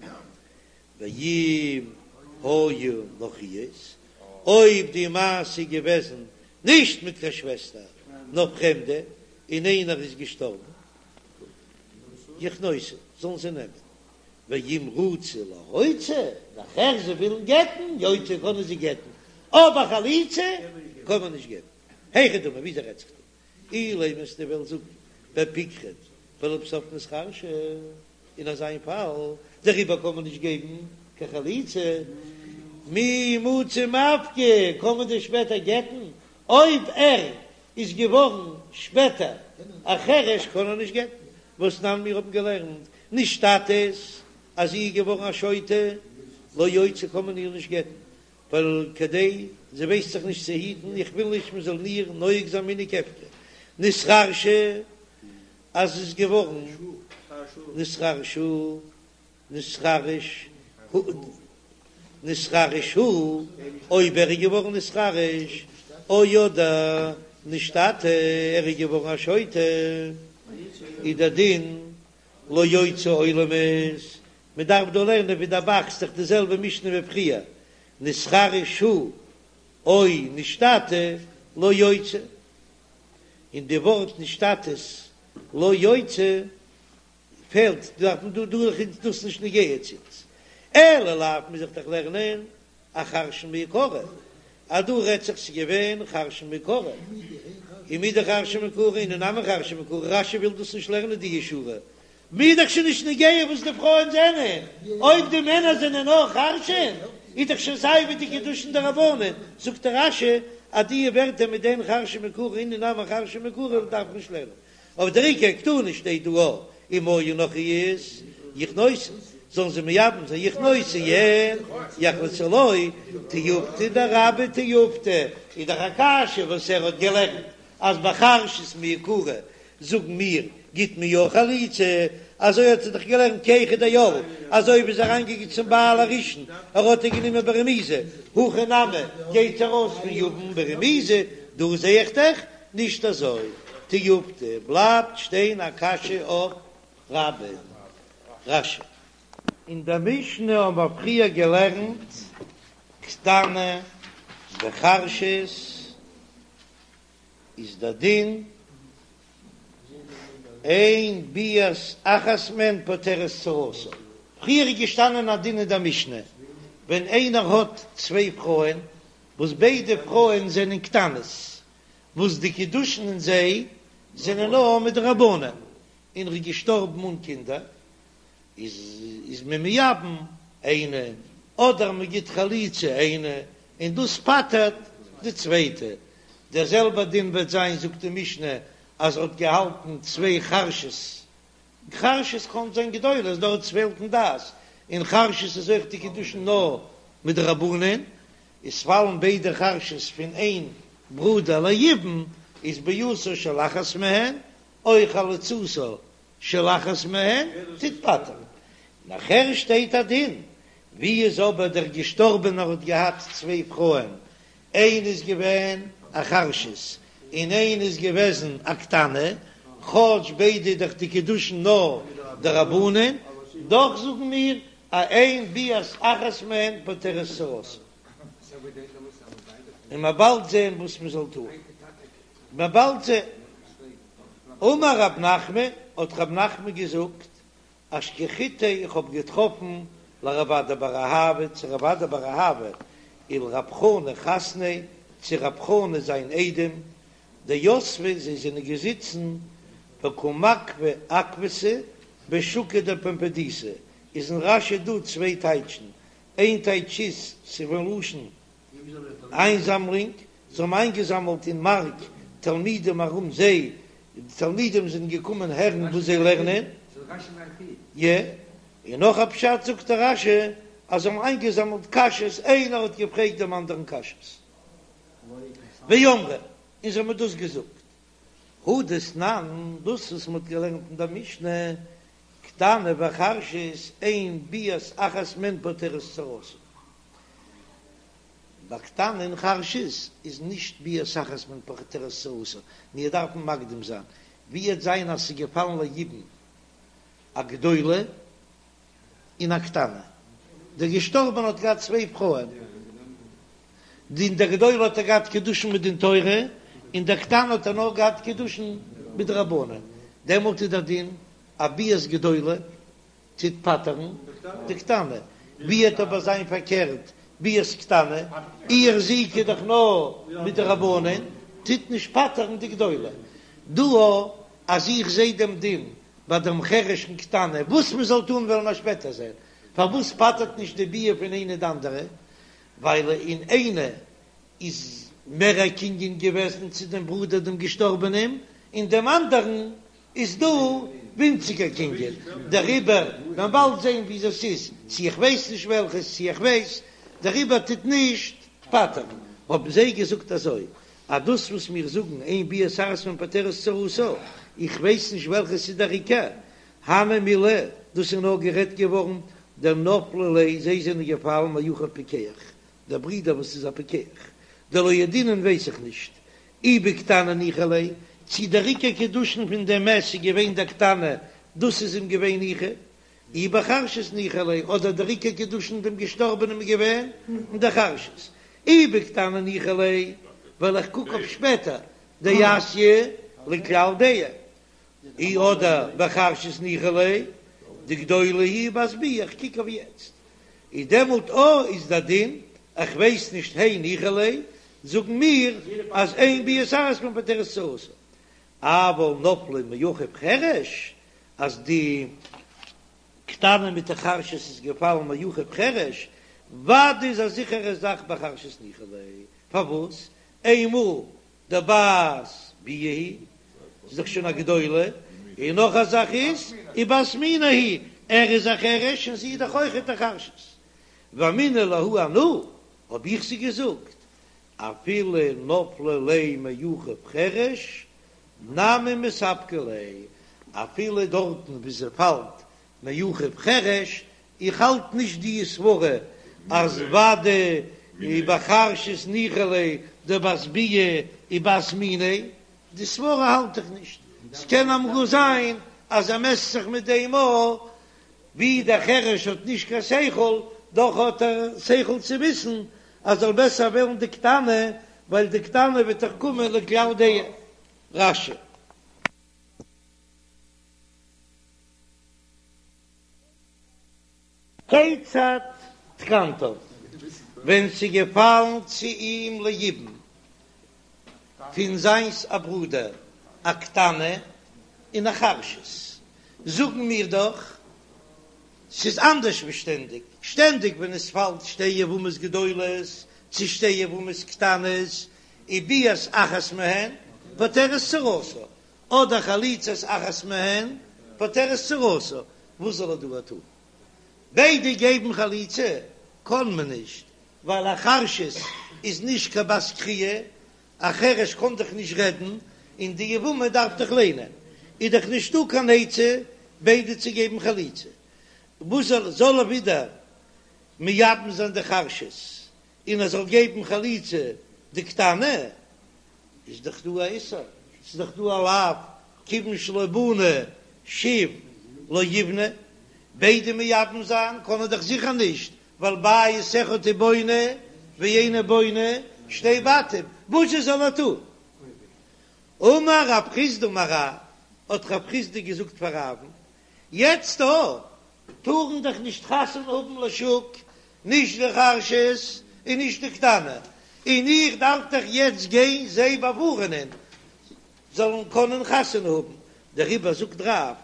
ואם היו נכריות, אויב די מעשה איז געוועזן נישט מיט קיין שוועסטער נאר פרעמדע, און איינער איז געשטארבן, יכנוסו, זאלן זיי נעמען, ואם רצו להוציא, נאכער זיי ווילן גט'ן, יוציאו קענען זיי גט'ן, אבער חליצה קען מען נישט געבן. היכי דמי, וויאזוי רעדט זיך דא? אילימא וועסטו וועלן זאגן בפיקחת ולבסוף נתחרשה, אין אזא פאל דעריבער קען מען נישט געבן קיין חליצה, מי מצי מפקי, קען מען דען שפעטער גט'ן? אויב ער איז געווארן שפעטער א חרש קען ער נישט גט'ן, והתנן מיר האבן געלערנט נשתטית אז זי איז געווארן א שוטה לא יוציא קען מען איר נישט גט'ן, ווייל כדי זי ווייסט זיך נישט צו היטן, איך וויל נישט מען זאל איר נוהג זיין מנהג הפקר, נתחרשה אז זי איז געווארן נתחרשו נתחרש נתחרש הוא, אויב ער איז געווארן נתחרש, או אדער נשתטה, ער איז געווארן א שוטה, איז דער דין לא יוציא עולמית, מען דארף דא לערנען ווי דער ב"ח, ס'איז דאך די זעלבע משנה ווי פריער, נתחרש הוא או נשתטה לא יוציא, און די ווארט נשתטית לא יוציא פעלט דארף מען דא דא איז דאס נישט נוגע צו אונז, אלא לאו מוז איך דאך לערנען אחרשין מעיקרא, אז דא רעדט זיך ס'איז געווען חרשין מעיקרא, ומדחרשין מעיקרא אינהו נמי חרשין מעיקרא, רש"י וויל דאס נישט לערנען די שורה, מיר דאך שוין נישט נוגע וואס די פרויען זענען, אויב די מענער זענען אויך חרשין, איז דאך שוין סיי ווי די קידושין דרבנן, זאגט דער רש"י אז די ווערטער מיט דעם חרשין מעיקרא אינהו נמי חרשין מעיקרא דארף מען נישט לערנען, אבער דער עיקר קתני שטייט דא א אם היו נכריות יכנוסו, זאלן זיי מייבם זיין יכנוסו אין יחלצו לא, תיובתא דרבה תיובתא, איז דאך א קשיא וואס ער האט געלערנט אז ביי חרשות מעיקרא זאגן מיר גיט מען יא חליצה, אזוי האט ער דאך געלערנט כי היכי דעל, אזוי ווי איז אריינגעגאנגען צום בעל הראשון ער האט איר גענומען ברמיזה, הכא נמי גייט ארויס פון יבם ברמיזה, דא זע איך דאך נישט אזוי, תיובתא בלייבט שטיין א קשיא אויף רבה. רש"י. אין דער משנה האבן מיר פריער געלערנט קטנה וחרשת איז דער דין אין ביאת אחת מהן פוטרת צרתה. פריער איז געשטאנען א דין אין דער משנה ווען איינער האט צוויי פרויען וואס ביידע פרויען זענען קטנות וואס די קידושין אין זיי זענען נאר מדרבנן און ער איז געשטארבן אן קינדער איז איז מען מייבם איינע. אדער מען גיט חליצה איינע און דאס פטר'ט די צווייטע. דער זעלבער דין וועט זיין זאגט די משנה אז ער האט געהאלטן צוויי חרשות, חרשות קען זיין גדולות דארט ס'פעלט אין דעת, און חרשות איז אויך די קידושין נאר מדרבנן, איז פאלן ביידע חרשות פון איין ברודער ליבום איז ביאתה של אחת מהן או חליצתה של אחת מהן טוט פטר'ן. נאכער שטייט א דין, ווי איז אבער דער געשטארבענער האט געהאט צוויי פרויען, איין איז געווען א חרשת און איין איז געוועזן א קטנה, כאטש ביידע איז דאך די קידושין נאר דרבנן, דאך זאגן מיר אז אין ביאת אחת מהן פוטרת צרתה. און מ'עט באלד זען וואס מ'זאל טון. מ'עט באלד זען. אמר רב נחמן, האט רב נחמן געזאגט, אשכחתיה איך האב געטראפן לרב אדא בר אהבה צו רב אדא בר אהבה ולרב חנא חתניה צו רב חנא זיין איידעם דיתבי זיי זענען געזיצן וקא מקפי עקבתא בשוקא דפומבדיתא איז אין רש"י דא צוויי טייטשן איין טייטש איז ס'איז פון לשון איינזאמלונג, זיי האבן איינגעזאמלט אין מארק תלמידים ארום זיי, די תלמידים זענען געקומען הערן וואס זיי לערנען. י. און נאך א פשט זאגט דער רש"י אז זיי האבן איינגעזאמלט קשיות, איינער האט געפרעגט דעם אנדערן קשיות. ואמרי, און זיי האבן דאס געזאגט. הא דתנן, דאס וואס מען האט געלערנט אין דער משנה, קטנה וחרשת, אין ביאת אחת מהן פוטרת צרתה. ביי קטנה און חרשת איז נישט ביאת אחת מהן פוטרת צרתה, מיר דארפן מקדים זיין, ווי וועט זיין אז ס'איז געפאלן ליבום א גדולה און א קטנה, דער געשטארבענע האט געהאט צוויי פרויען, די אין דער גדולה האט ער געהאט קידושין מדין תורה, און דער קטנה האט ער נאר געהאט קידושין מדרבנן, דעמאלט איז דער דין א ביאת גדולה טוט פטר'ן די קטנה, ווי וועט אבער זיין פארקערט ביאת קטנה, איר זיקה איז דאך נאר מדרבנן, טוט נישט פטר'ן די גדולה. דא אז איך זע דעם דין ביי דעם חרש און קטנה, וואס מען זאל טון וועלן מיר שפעטער זען, פארוואס פטר'ט נישט די ביאה פון איינע די אנדערע, ווייל אין איינע איז מער א קנין געוועזן צו דעם ברודער דעם געשטארבענעם, און דעם אנדערן איז דא ווינציגער קנין, דעריבער מען באלד זען ווי דאס איז, צו איך ווייס נישט וועלכעס, צו איך ווייס, דעריבער טוט נישט פטר'ן. האבן זיי געזאגט אזוי, אז דאס וואס מיר זאגן אין ביאת אחת מהן פוטרת צרתה, איך ווייס נישט וועלכעס איז דער עיקר, הני מילי, דאס איז נאר גערעדט געווארן דנפלו ליה, זיי זענען געפאלן מאחיו פיקח, דער ברודער וואס איז א פיקח, דלא ידעינן ווייס איך נישט, אי בקטנה ניחא ליה, צי דער עיקר קידושין פון דעם מת איז געווען דער קטנה, דאס איז אים געווען ניחא, אי בחרשת ניחא ליה, אדער דער עיקר קידושין דעם געשטארבענעם איז געווען אין דער חרשת, אי בקטנה ניחא ליה, ווייל איך קוק אויף שפעטער, דאתיא לכלל דעה, אי אדער בחרשת ניחא ליה, דגדולה היא ובת ביאה, איך קוק אויף יעצט, איז דעמאלט או איז דער דין, איך ווייס נישט הי ניחא ליה, זאגן מיר אז אין ביאת אחת מהן פוטרת צרתה, אבל נפלה מאחיו חרש, אז די קטנה מיט די חרשת איז געפאלן מאחיו חרש, ודאי איז א זיכערע זאך בחרשת ניחא ליה, פארוואס? איינמאל דבת ביאה היא, איז דאך שוין א גדולה, און נאך א זאך איז, ובת מינה היא, ער איז א חרש און זי איז דאך אויכעט א חרשת. ואמינא להו אנא, האב איך זיי געזאגט, אפילו נפלה ליה מאחיו חרש, נמי מספקא ליה, אפילו דארטן וואו זי פאלט מאחיו חרש, איך האלט נישט די סברה אז ודאי בחרשת ניחא ליה דבת ביאה ובת מינה, די סברה האלט איך נישט, ס'קען אמאל זיין אז ער מעסט זיך מיט דעם אויך, ווי דער חרש האט נישט קיין שכל, דאך האט ער שכל צו וויסן אז זאל בעסער וועלן די קטנה, ווייל די קטנה וועט דאך קומען לכלל דעה. רש"י. כיצד תקנתן, ווען ס'איז געפאלן צו אים ליבום פון זיינס א ברודער א קטנה און א חרשת, זאגן מיר דאך. ס'איז אנדערש ווי שטענדיג, שטענדיג ווען עס פאלט שתי יבמות גדולות צו שתי יבמות קטנות, איז ביאת אחת מהן פוטרת צרתה, אדער חליצת אחת מהן פוטרת צרתה, וואס זאל ער דא טון? ביידע געבן חליצה קען מען נישט, ווייל א חרשת איז נישט קיין בת קריאה, א חרש קען דאך נישט רעדן, און די יבמה דארף דאך ליינען, איז דאך נישטא קיין עצה ביידע צו געבן חליצה. וואס זאל זאל ער ווידער מייבם זיין די חרשת און ער זאל געבן חליצה די קטנה? איז דאך דא א איסור, ס'איז דאך דא א לאו, כיוון שלא בנה שוב לא יבנה, ביידע מייבם זיין קען ער דאך זיכער נישט, ווייל בית אחד הוא בונה ואינו בונה שתי בתים, וואס זאל ער טון? אמר רב חסדא אמר רב, האט רב חסדא געזאגט פאר רב'ן, יעצט דא טארן דאך נישט חתונה האבן לשוק, נישט די חרשת און נישט די קטנה, און איך דארף דאך יעצט גיין זיי באווארענען זאלן קענען חתונה האבן, דעריבער זאגט רב,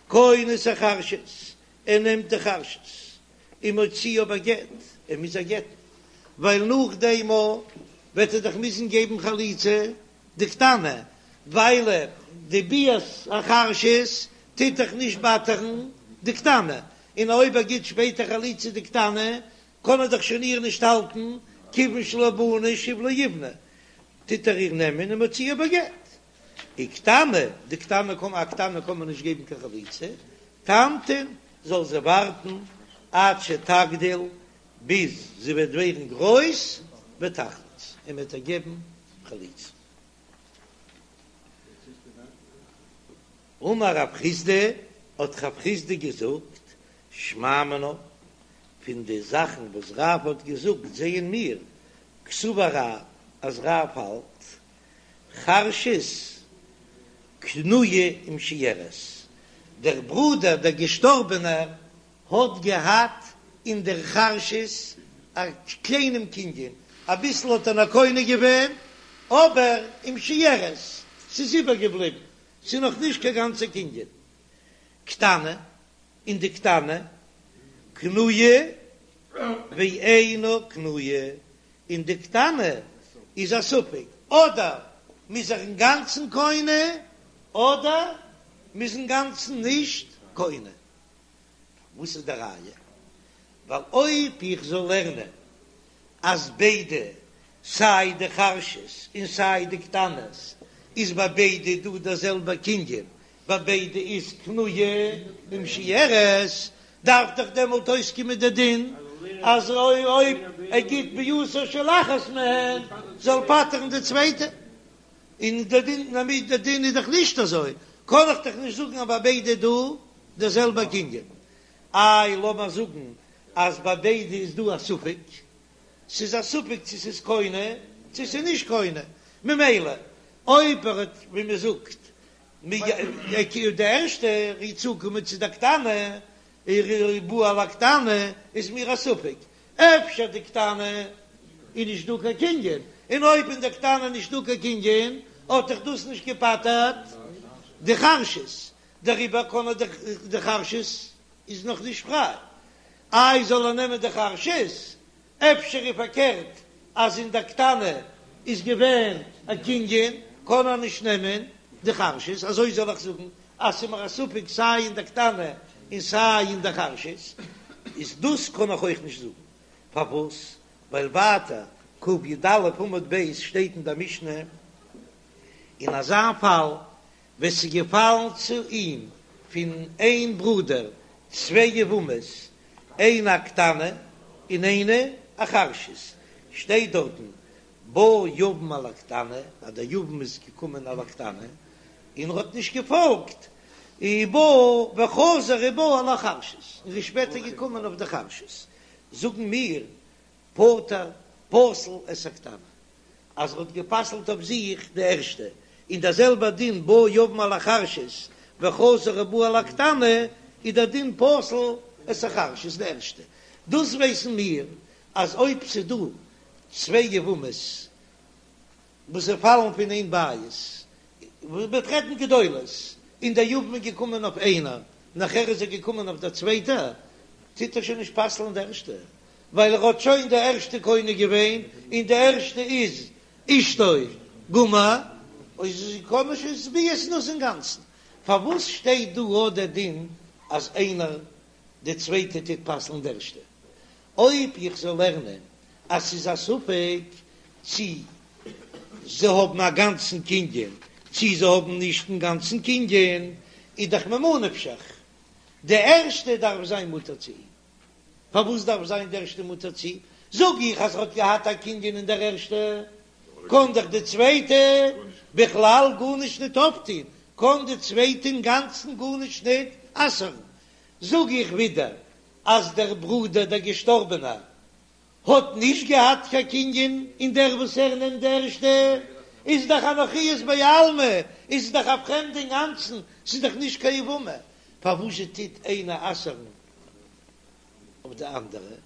כונס החרשת, ער נעמט די חרשת ומוציאה בגט, ער מוז איר גט'ן, ווייל נאכדעם וועט ער דאך מוזן געבן חליצה די קטנה, ווייל די ביאת החרשת טוט דאך נישט פטר'ן די קטנה, און אויב ער גיט שפעטער חליצה די קטנה, קען ער דאך שוין איר נישט האלטן, כיוון שלא בנה שוב לא יבנה, טוט ער איר נעמען ומוציאה בגט. וקטנה, די קטנה קען א קטנה קען מען נישט געבן קיין חליצה, תמתין, זאל זי ווארטן עד שתגדיל, ביז זי וועט ווערן גרויס, ותחלוץ, און מען וועט איר געבן חליצה. אמר רב חסדא, האט רב חסדא געזאגט, שמע מינה, פון די זאכן וואס רב האט געזאגט זעען מיר, קסבר רב, אז רב האלט, חרשת קנויה ומשויירת, דער ברודער דער געשטארבענער האט געהאט אין דער חרשת א קליינעם קנין, אביסל האט ער נאר קונה געווען, אבער ומשויירת, ס'איז איבערגעבליבן, ס'איז נאך נישט קיין גאנצע קנין. קטנה, און די קטנה, קנויה ואינה קנויה, און די קטנה איז א ספק, אדער מ'איז איר אינגאנצן קונה, אדער מ'איז אינגאנצן נישט קונה. וואס איז די ראיה? ווייל אויב איך זאל לערנען אז ביידע, סיי די חרשת און סיי די קטנות, איז ביי ביידע דא דער זעלבער קנין, ביי ביידע איז קנויה ומשויירת, דארף דאך דעמאלט אויסקומען די דין אז אויב ער גיט ביאתה של אחת מהן זאל פטר'ן די צווייטע, און די דין די דין איז דאך נישט אזוי, קען איך דאך נישט זאגן אז ביי ביידע איז דא דער זעלבער קנין. איי לאמיר זאגן אז ביי ביידע איז דא א ספק, ס'איז א ספק צו ס'איז קונה צו ס'איז נישט קונה, ממילא אויב ער האט ווי מ'זאגט די ערשטע ער איז צוגעקומען צו די קטנה, ובא על הקטנה איז מיר א ספק, אפשר די קטנה איז נישט דא קיין קנין, און אויב אין די קטנה נישט דא קיין קנין האט דאך דאס נישט געפטר'ט די חרשת, דעריבער קען ער די חרשת איז נאך נישט פריי, איי זאל ער נעמען די חרשת? אפשר איז פארקערט אז אין די קטנה איז געווען א קנין קען ער נישט נעמען די חרשת, אזוי זאל איך זאגן אז ס'איז מיר א ספק סיי אין די קטנה און סיי אין די חרשת, איז דאס קען איך אויך נישט זאגן, פארוואס? ווייל ווייטער קי"א עמוד ב' שטייט אין די משנה אין אזא פאל ווען ס'איז געפאלן צו אים פון איין ברודער צוויי יבמות, איינע א קטנה און איינע א חרשת, שטייט דארטן בא יבם על הקטנה, אז דער יבם איז געקומען על הקטנה און ער האט נישט געפאלגט, ובא וחזר ובא על החרשת, און איז שפעטער געקומען אויף די חרשת, זאגן מיר פטר פסל את הקטנה, אז ער האט גע'פסל'ט אויף זיך די ערשטע, און דער זעלבער דין בא יבם על החרשת וחזר ובא על הקטנה, איז דער דין פסל את החרשת די ערשטע. דאס ווייסן מיר אז אויב ס'איז דא צוויי יבמות וואס זיי פאלן פון איין בית, מ'וועט רעדן גדולות, און דער יבם איז געקומען אויף איינער, נאכער איז ער געקומען אויף דער צווייטער. טוט ער שוין נישט פסל'ן די ערשטע, ווייל ער האט שוין די ערשטע קונה געווען, און די ערשטע איז אשתו גמור, אויב זי קען נישט איז ביאת נאס אינגאנצן. פארוואס שטייט דא אט דער דין אז איינער די צווייטע טוט פסל'ן די ערשטע? אויב איך זאל לערנען אז ס'איז א ספק צי זיי האבן א גאנצן קנין צי זיי האבן נישט אינגאנצן קנין, איז דאך ממה נפשך, די ערשטע דארף זיין מותר צו אים. פארוואס דארף זיין די ערשטע מותר צו אים? זאג איך אז ער האט געהאט א קנין אין דער ערשטע, קען דאך די צווייטע בכלל גארנישט ניט אויפטון, קען די צווייטע אינגאנצן גארנישט ניט אסר'ן. זאג איך ווידער אז דער ברודער דער געשטארבענער האט נישט געהאט קיין קנין אין דער וואס ער נעמט די ערשטע, איז דאך א נכרית בעלמא, איז דאך א פרעמדע אינגאנצן, ס'איז דאך נישט קיין יבמה, פארוואזשע טוט איינע אסר'ן אויף די אנדערע?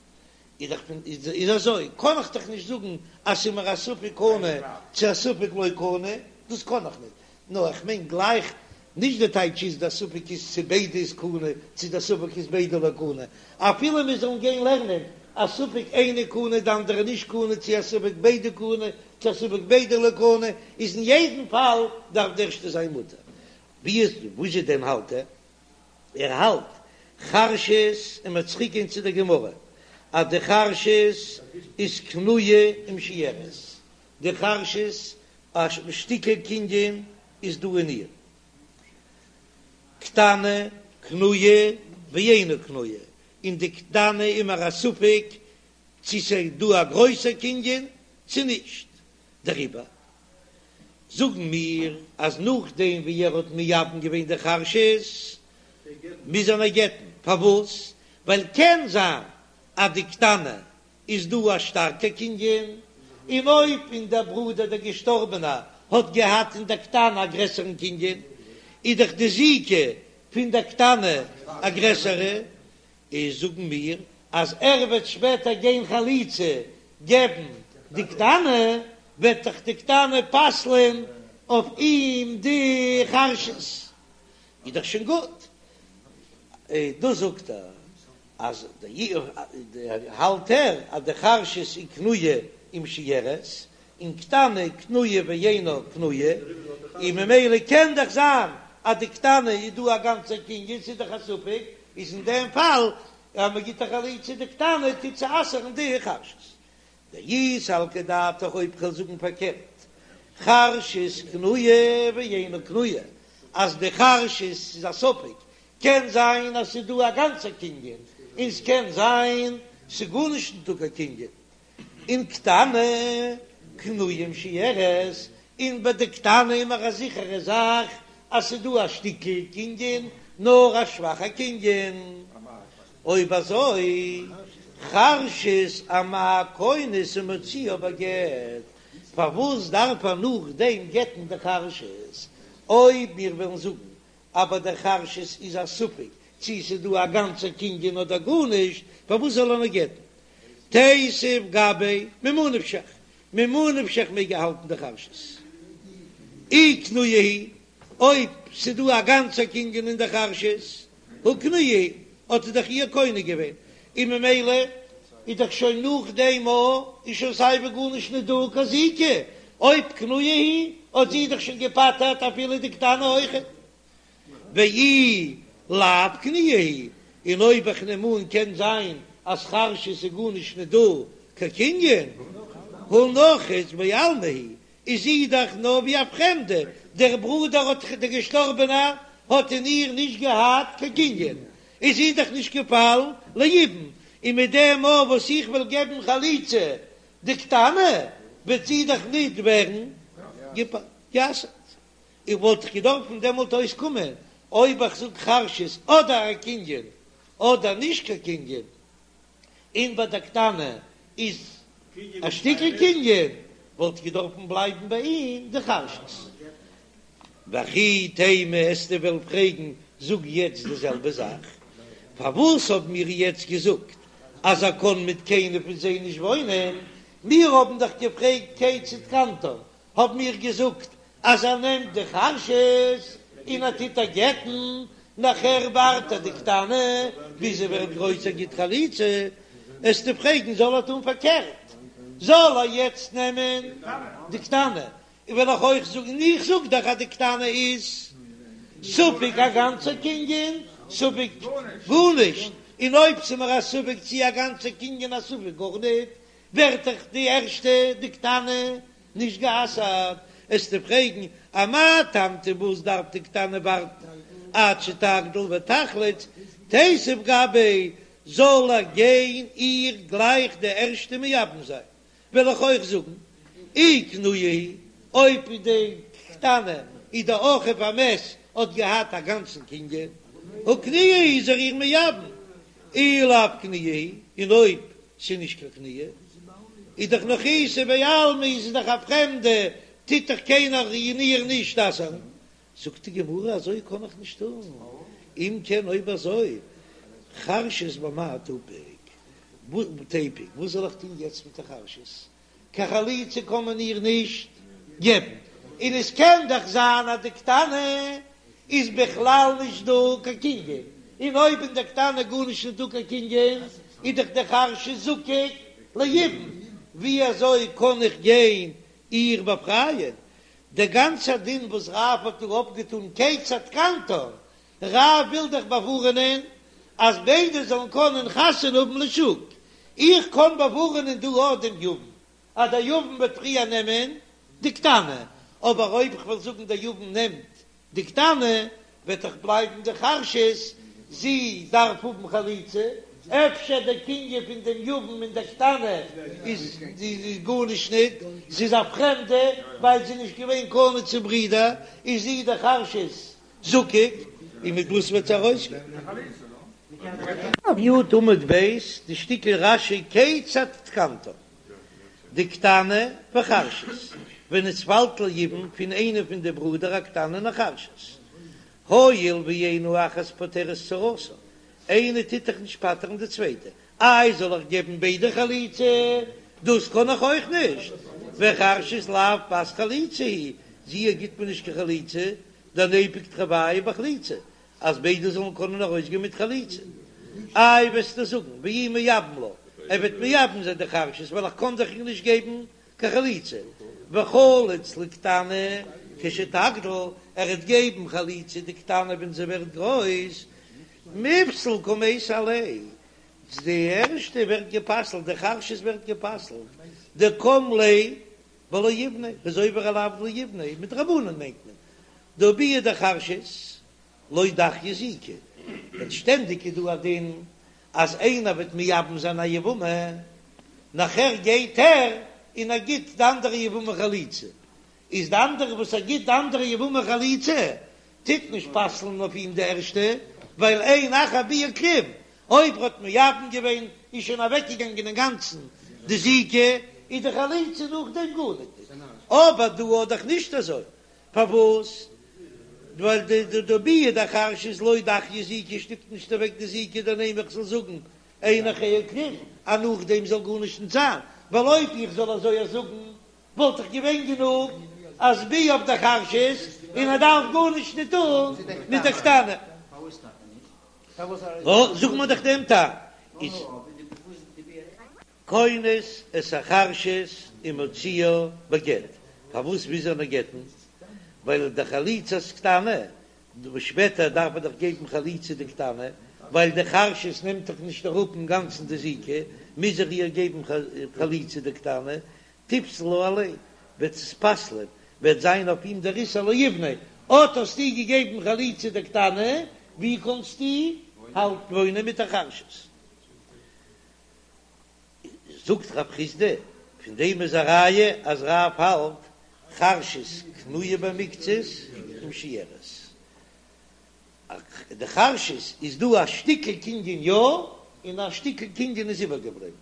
איז דאך פון איז אזוי קען איך דאך נישט זאגן אז ס'איז מיר א ספק קנה צו א ספק לא קנה, דאס קען איך נישט, נאר איך מיין גלייך נישט די טייטש איז די ספק איז צו ביידע איז קנה צו די ספק איז ביידע לא קנה, אפילו מיר זאלן גיין לערנען א ספק איינע קנה די אנדערע נישט קנה צו א ספק ביידע קנה צו א ספק ביידע לא קנה, איז אין יעדן פאל דארף די ערשטע זיין מותר. ווי איז וואס איז דען האלט ער? ער האלט חרשת און מ'וועט צוריק גיין צו די גמרא אז די חרשת איז קנויה ומשויירת, די חרשת א שטיקל קנין איז דא אין איר, קטנה קנויה ואינה קנויה, און די קטנה איז מיר א ספק צו ס'איז דא א גרויסע קנין צו נישט, דעריבער זאגן מיר אז נאכדעם ווי ער האט מייבם געווען די חרשת מוז ער איר גט'ן, פארוואס? ווייל קען זיין אז די קטנה איז דא א שטארקע קנין, און אויב אין דער ברודער דער געשטארבענער האט געהאט אין דער קטנה א גרעסערן קנין, איז דאך די זיקה פון דער קטנה א גרעסערע, איז זאגן מיר אז ער וועט שפעטער גיין חליצה געבן די קטנה, וועט דאך די קטנה פסל'ען אויף אים די חרשת, איז דאך שוין גוט, דאס זאגט ער אז די האלט ער אז די חרשת איז קנויה ומשויירת, און קטנה קנויה ואינה קנויה, און ממילא קען דאך זיין אז די קטנה איז דא א גאנצע קנין, ס'איז דאך א ספק, איז אין דעם פאל אז מען גיט א חליצה די קטנה טוט זי אסר'ן די חרשת. דאי סלקא דעתך אויב כ'וועל זאגן פארקערט, חרשת קנויה ואינה קנויה, אז די חרשת איז א ספק, קען זיין אז ס'איז דא א גאנצע קנין, און ס'קען זיין ס'איז גארנישט ניטא קיין קנין, און קטנה קנויה ומשויירת, און ביי די קטנה איז מיר א זיכערע זאך אז ס'איז דא א שטיקל קנין, נאר א שוואכע קנין. אויב אזוי, חרשת אמאי כונס ומוציאה בגט, פארוואס דארף ער נאכדעם גט'ן די חרשת? אויב מיר וועלן זאגן אז ביי דער חרשת איז א ספק צי ס'איז דא א גאנצע קנין אדער גארנישט, פארוואס זאל ער נאר גט'ן? תיתיב גביה ממה נפשך, ממה נפשך מעג ער האלטן די חרשת. אי קנויה היא, אויב ס'איז דא א גאנצע קנין אין די חרשת, הא קנויה היא, האט ער דאך איר קונה געווען, און ממילא איז דאך שוין נאך דעם א איז שוין סייווי גארנישט נישט דא קיין זיקה, אויב קנויה היא האט זי דאך שוין געפטר'ט אפילו די קטנה אויכעט. ואי לאו קנויה היא, און אויב איך נעם אן קען זיין אז חרשת איז גארנישט נישט דא קיין קנין, הא נכרית בעלמא היא, איז זי דאך נאר ווי א פרעמדע, דער ברודער האט דער געשטארבענער האט אין איר נישט געהאט קיין קנין, איז זי דאך נישט געפאלן ליבום, און מיט דעם מאל וואס איך וועל געבן חליצה די קטנה וועט זי דאך ניט ווערן גע'אסר'ט. איך וואלט דאך געדארפן דעמאלט אויסקומען אויב איך זאג חרשת אדער א קנין אדער נישט קיין קנין, און ביי די קטנה איז א שטיקל קנין, וואלט געדארפן בלייבן ביי אים די חרשת. וכי תימא וועסטו וועלן פרעגן, זאג יעצט די זעלבע זאך, פארוואס האבן מיר יעצט געזאגט אז ער קען מיט קיינער פון זיי נישט וואוינען? מיר האבן דאך געפרעגט כיצד קנתה, האבן מיר געזאגט אז ער נעמט די חרשת און ער טוט איר גט'ן. נאכער ווארט ער די קטנה ביז זי ווערט גרויס ער גיט חליצה, עסטו פרעגן זאל ער טון פארקערט, זאל ער יעצט נעמען די קטנה, און וועל איך אויך זאגן, איך זאג דאך אז די קטנה איז ספק א גאנצע קנין, ספק גארנישט, און אויב ס'מיר א ספק צי א גאנצע קנין א ספק גארניט, ווערט דאך די ערשטע די קטנה נישט גע'אסר'ט, עסטו פרעגן אמאי תמתין וואס דארף די קטנה ווארטן עד שתגדיל ותחלוץ, תיתיב גביה זאל ער גיין איר גלייך די ערשטע מייבם זיין, וועל איך אויך זאגן אי קנויה היא, אויב די קטנה איז די אחיו המת האט געהאט א גאנצן קנין, הא קנויה היא איז ער איר מייבם, אי לאו קנויה היא, און אויב ס'איז נישט קיין קנויה, איז דאך נכריתא בעלמא איז עס דאך א פרעמדע, טוט דאך קיינער אין איר נישט אסר'ן. זאגט די גמרא אזוי קען איך נישט טון, אם כן אויב אזוי חרשת במאי תפיק, תיפוק, וואס זאל איך טון יעצט מיט די חרשת? קיין חליצה קען מען איר נישט געבן, און עס קען דאך זיין אז די קטנה איז בכלל נישט דא קיין קנין, און אויב אין די קטנה גארנישט נישט דא קיין קנין, איז דאך די חרשת זקוק ליבום, ווי אזוי קען איך גיין איר באפרייען? דער גאנצער דין וואס רב האט דא אפגעטאן כיצד תקנתן, רב וויל דאך באווארענען אז ביידע זאלן קענען חתונה האבן לשוק, איך קען באווארענען דא אויך דעם יבם, אז דער יבם וועט פריער נעמען די קטנה, אבער אויב איך וועל זאגן דער יבם נעמט די קטנה, וועט דאך בלייבן די חרשת, זי דארף האבן חליצה, אפשר דער קנין פון דעם יבם אין דער קטנה איז גארנישט ניט, זי איז א פרעמדע, ווייל זי איז נישט געווען קנוי צום ברודער, איז זי די חרשת זקוק, און מיט וואס וועט זי ארויסגיין? י' עמוד ב', די שטיקל רש"י כיצד תקנתן, די קטנה וחרשת, ווען עס פאלט ליבום פון איינע פון די ברודער א קטנה און א חרשת, הואיל ואין האחת פוטרת צרתה, איינע טוט דאך נישט פטר'ן די צווייטע, איי זאל איך געבן ביידע חליצה? דאס קען איך אויך נישט, וחרשת לאו בת חליצה היא, זי גיט מען נישט קיין חליצה, דניפוק תרוייהו בחליצה, אז ביידע זאלן קענען ארויסגיין מיט חליצה. איי וועסטו זאגן ואי מייבם לה, ער וועט מייבם זיין די חרשת ווייל איך קען דאך איר נישט געבן קיין חליצה, וחליץ לקטנה כשתגדיל, ער וועט געבן חליצה די קטנה ווען זי ווערט גרויס, מיפסל קמייתא עליה, די ערשטע ווערט גע'פסל'ט, די חרשת ווערט גע'פסל'ט, דקם ליה בלא יבנה, איז עובר א לאו לא יבנה, מדרבנן מיינט מען, דהא ביאה דחרשת לא דחיא זיקה, ווען שטענדיג איז דא א דין אז איינער וועט מייבם זיין א יבמה, נאכער גייט ער און ער גיט די אנדערע יבמה חליצה, איז די אנדערע וואס ער גיט די אנדערע יבמה חליצה טוט נישט פסל'ן אויף אים די ערשטע, ווייל אין אחר ביאה כלום, אויב ער האט מייבם געווען איז שוין אוועקגעגאנגען אינגאנצן די זיקה, איז די חליצה נאכדעם גארניט, אבער דא איז דאך נישט אזוי, פארוואס? ווייל די די ביאה דחרשת לא דחיא זיקה שטופט נישט אוועק די זיקה דנימא איך זאל זאגן אין אחריה כלום אז נאכדעם זאל גארנישט נישט זיין, ווייל אויב איך זאל אזוי זאגן וואלט דאך געווען גענוג אז ביאה אויף די חרשת און ער דארף גארנישט נישט טון מיט די קטנה. נו, זאג מיר דאך דעם טעם איז. כונס את החרשת ומוציאה בגט, פארוואס מוז ער נאר גט'ן? ווייל די חליצת קטנה, שפעטער דארף ער דאך געבן חליצה די קטנה, ווייל די חרשת נעמט דאך נישט אראפ אינגאנצן די זיקה, מוז ער איר געבן חליצה די קטנה, תיפסל עליה, וועט עס פסל'ען, וועט זיין אויף אים דער איסור לא יבנה, אט האסטו געגעבן חליצה די קטנה, ווי קאנסטו האלט וואוינען מיט א חרשת? זאגט רב חסדא, פון דעם איז א ראיה אז רב האלט חרשת קנויה במקצת ומשויירת. די חרשת איז דא א שטיקל קנין יא, און א שטיקל קנין איז איבערגעבליבן.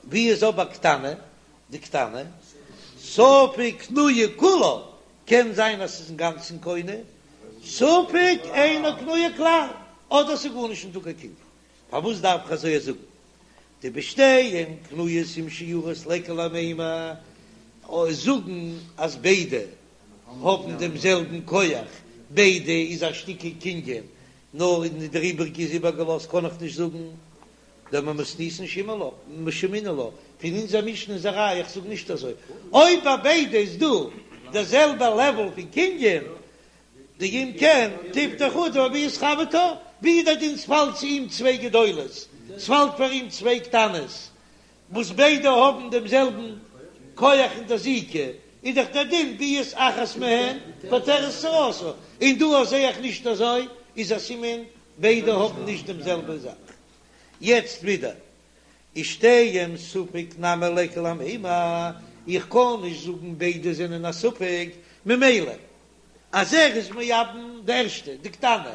ווי איז אבער קטנה? די קטנה, ספק קנויה כולה, קען זיין אז ס'איז אינגאנצן קונה, ספק אינה קנויה כלל, אדער ס'איז גארנישט נישטא קיין קנין. פארוואס דארף איך אזוי זאגן? דבשתיהן קנויות ומשוירות ליכא למימר, זאגן אז ביידע האבן דעם זעלבן כח, ביידע איז א שטיקל קנין. נאר און דער איבריגע איז איבערגעלאזט קען איך נישט זאגן דממתניתין שמעינן לה, פון אונזער משנה איז א ראיה איך זאג נישט אזוי, אויב ביי ביידע איז דא דער זעלבע לעוועל פון קנין, דאם כן תפטור חדא בביאת חברתה, ווי דער דין ס'פאלט צו אים צוויי גדולות, ס'פאלט פאר אים צוויי קטנות, וואס ביידע האבן דעם זעלבן כח אין דער זיקה, איז דאך דער דין ביאת אחת מהן פוטרת צרתה, און דא זע איך נישט אזוי, איז א סימן ביידע האבן נישט דעם זעלבע זאך. יעצט ווידער, ושתיהן ספק נמי ליכא למימר, איך קען נישט זאגן ביידע זענען א ספק, ממילא אז ער איז מייבם די ערשטע, די קטנה,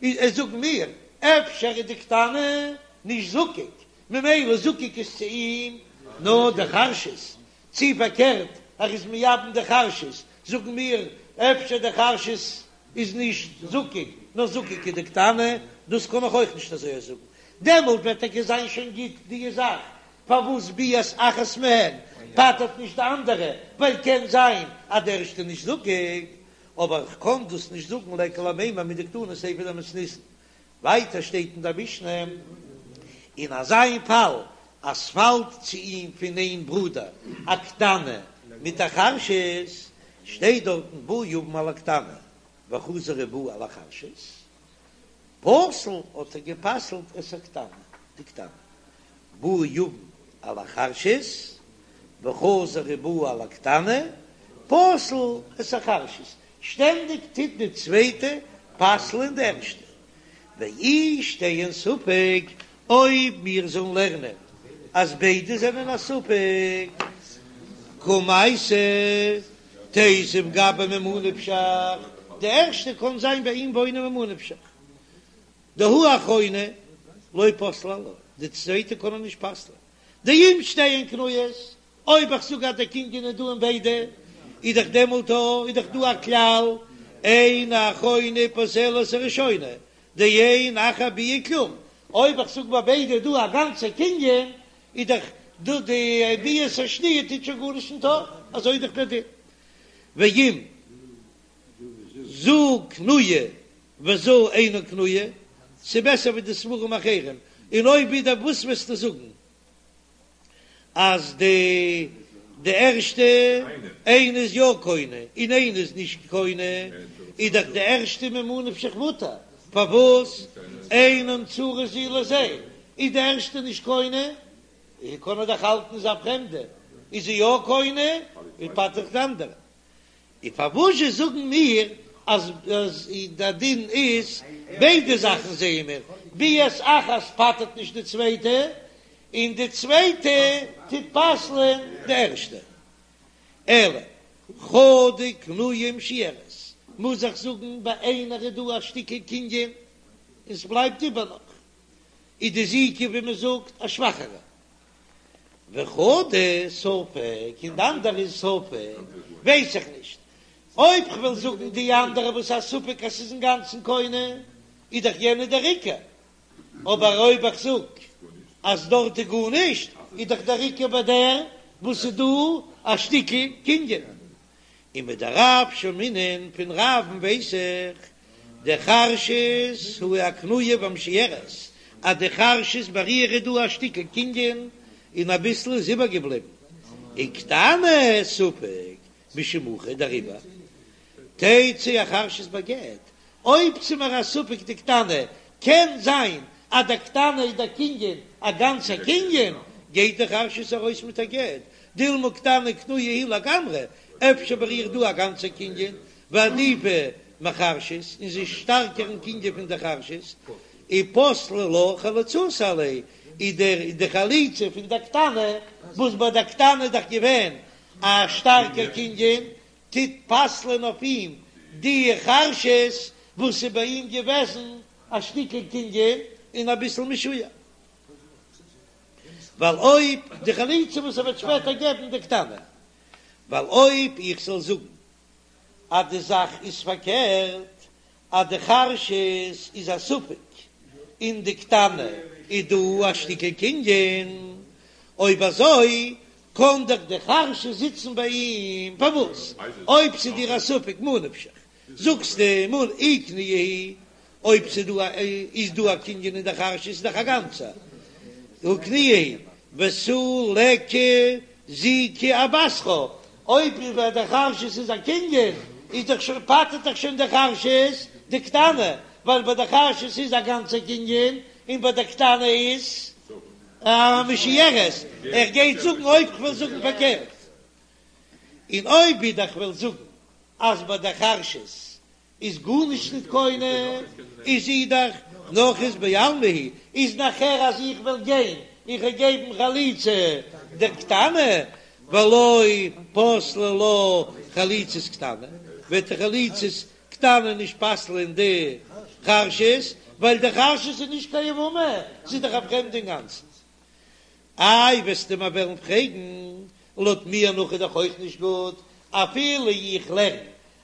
איז זאגן מיר, אפשר איז די קטנה נישט זקוק, ממילא זקוק איז צו אים נאר די חרשת, צי פארקערט ער איז מייבם די חרשת, זאגן מיר אפשר די חרשת איז נישט זקוק נאר זקוק איז די קטנה, דאס קען איך אויך נישט אזוי זאגן, דעמאלט וועט טאקע זיין שוין גוט די זאך, פארוואס ביאת אחת מהן פטר'ט נישט די אנדערע, ווייל קען זיין אז די ערשטע נישט זקוק, אבער איך קען דאס נישט זאגן ליכא למימר מדקתני סיפא דמתניתין, ווייטער שטייט אין דער משנה, אין אזא פאל אז ס'פאלט צו אים פון איין ברודער א קטנה מיט א חרשת, שטייט דארטן בא יבם על הקטנה וחזר ובא על החרשת, פסל האט ער גע'פסל'ט את הקטנה, די קטנה, בא יבם על החרשת וחזר ובא על הקטנה, פסל את החרשת, שטענדיג טוט די צווייטע פסל'ען די ערשטע. ואי שתיהן ספק, אויב מיר זאלן לערנען אז ביידע זענען א ספק, קמייתא תיתיב גביה ממה נפשך, די ערשטע קען זיין ביי אים וואוינען ממה נפשך, דהא אחרונה לא פסלה עלה, די צווייטע קען ער נישט פסל'ען, דאם שתיהן קנויות, אויב איך זאג אז דער קנין איז דא אין ביידע, איז דאך דעמאלט איז דאך דא א כלל, אין האחרונה פוסלת הראשונה, דאין אחר ביאה כלום, אויב איך זאג ביי ביידע איז דא א גאנצע קנין, איז דאך דא די ביאת השניה טוט שוין גארנישט נישט אויף, אזוי איז דאך דער דין. ואם זו קנויה וזו אינה קנויה, ס'בעסער ווי די ספרים אחרים, און אויב ווידער וואס וועסטו זאגן? אז די די ערשטע איינע איז יא קונה און איינע איז נישט קונה, איז דאך די ערשטע ממה נפשך מותר, פארוואס אינן צרות זו לזה, איז די ערשטע נישט קונה, קען ער דאך האלטן איז א פרעמדע, איז זי יא קונה, און פטר'ט די אנדערע. און פארוואזשע זאגן מיר אז די דין איז ביידע זאכן זעען מיר, ביאת אחת פטר'ט נישט די צווייטע, און די צווייטע טוט פסל'ען די ערשטע. אלא חדא קנויה ומשוירת, מוז איך זאגן ביי איינער איז דא א שטיקל קנין און ס'בלייבט איבער נאך, איז די זיקה ווי מ'זאגט א שוואכערע, וחדא ספק, און די אנדערע איז ספק, ווייס איך נישט. אויב כ'וועל זאגן די אנדערע וואס א ספק אז ס'איז אינגאנצן קונה, איז דאך יענע דער עיקר. אבער אויב איך זאג אז דארט איז גארנישט, איז דאך דער עיקר ביי דער וואס איז דא א שטיקל קנין. ומדרב שמעינן פון רב'ן ווייס איך דחרשת היא הקנויה והמשוירת אז די חרשת ביי איר איז דא א שטיקל קנין און אביסל איז איבערגעבליבן וקטנה ספק משום הכי דעריבער תצא החרשת בגט אויב ס'איז מיר א ספק די קטנה קען זיין אז די קטנה איז דער קנין א גאנצע קנין גייט די חרשת ארויס מיט א גט דילמא קטנה קנויה היא לגמרי, אפשר ביי איר דא א גאנצע קנין, ועדיפא מחרשת, און זי איז שטארקער אין קנין פון די חרשת, ופסלה לה חליצתה עליה, איז דער די חליצה פון די קטנה, וואס ביי די קטנה איז דאך געווען א שטארקע קנין, טוט פסל'ען אויף אים די חרשת וואס איז ביי אים געוועזן א שטיקל קנין און אביסל משויר. ווייל אויב די חליצה וואס ער וועט שפעטער געבן די קטנה, ווייל אויב איך זאל זאגן אז די זאך איז פארקערט, אז די חרשת איז א ספק און די קטנה איז דא א שטיקל קנין, אויב אזוי קען דאך די חרשת זיצן ביי אים, פארוואס אויב ס'איז דיר א ספק מה נפשך זאגסטו מ אי קנויה היא. אויב ס'איז דא א איז דא א קנין אין די חרשת איז דאך א גאנצע הא קנויה היא ותו ליכא זיקה אבתרה, אויב ביי די חרשת איז א קנין איז דאך שוין פטר'ט דאך שוין די חרשת די קטנה, ווייל ביי די חרשת איז א גאנצע קנין און ביי די קטנה איז א משוירת, ער גייט זאגן אויב כ'וועל זאגן פארקערט, און אויב ווידער כ'וועל זאגן אז ביי די חרשת איז גארנישט ניט קונה, איז זי דאך נכרית בעלמא היא, איז נאכער אז איך וועל גיין איך וועל געבן חליצה דער קטנה, ולא פסלה לה חליצת קטנה, וועט די חליצת קטנה נישט פסל'ען די חרשת, ווייל די חרשת איז נישט קיין יבמה, זי איז דאך א פרעמדע אינגאנצן. איי וועסטו מיר וועלן פרעגן, לויט מיר נאך איז דאך אויך נישט גוט, אפילו איך לערן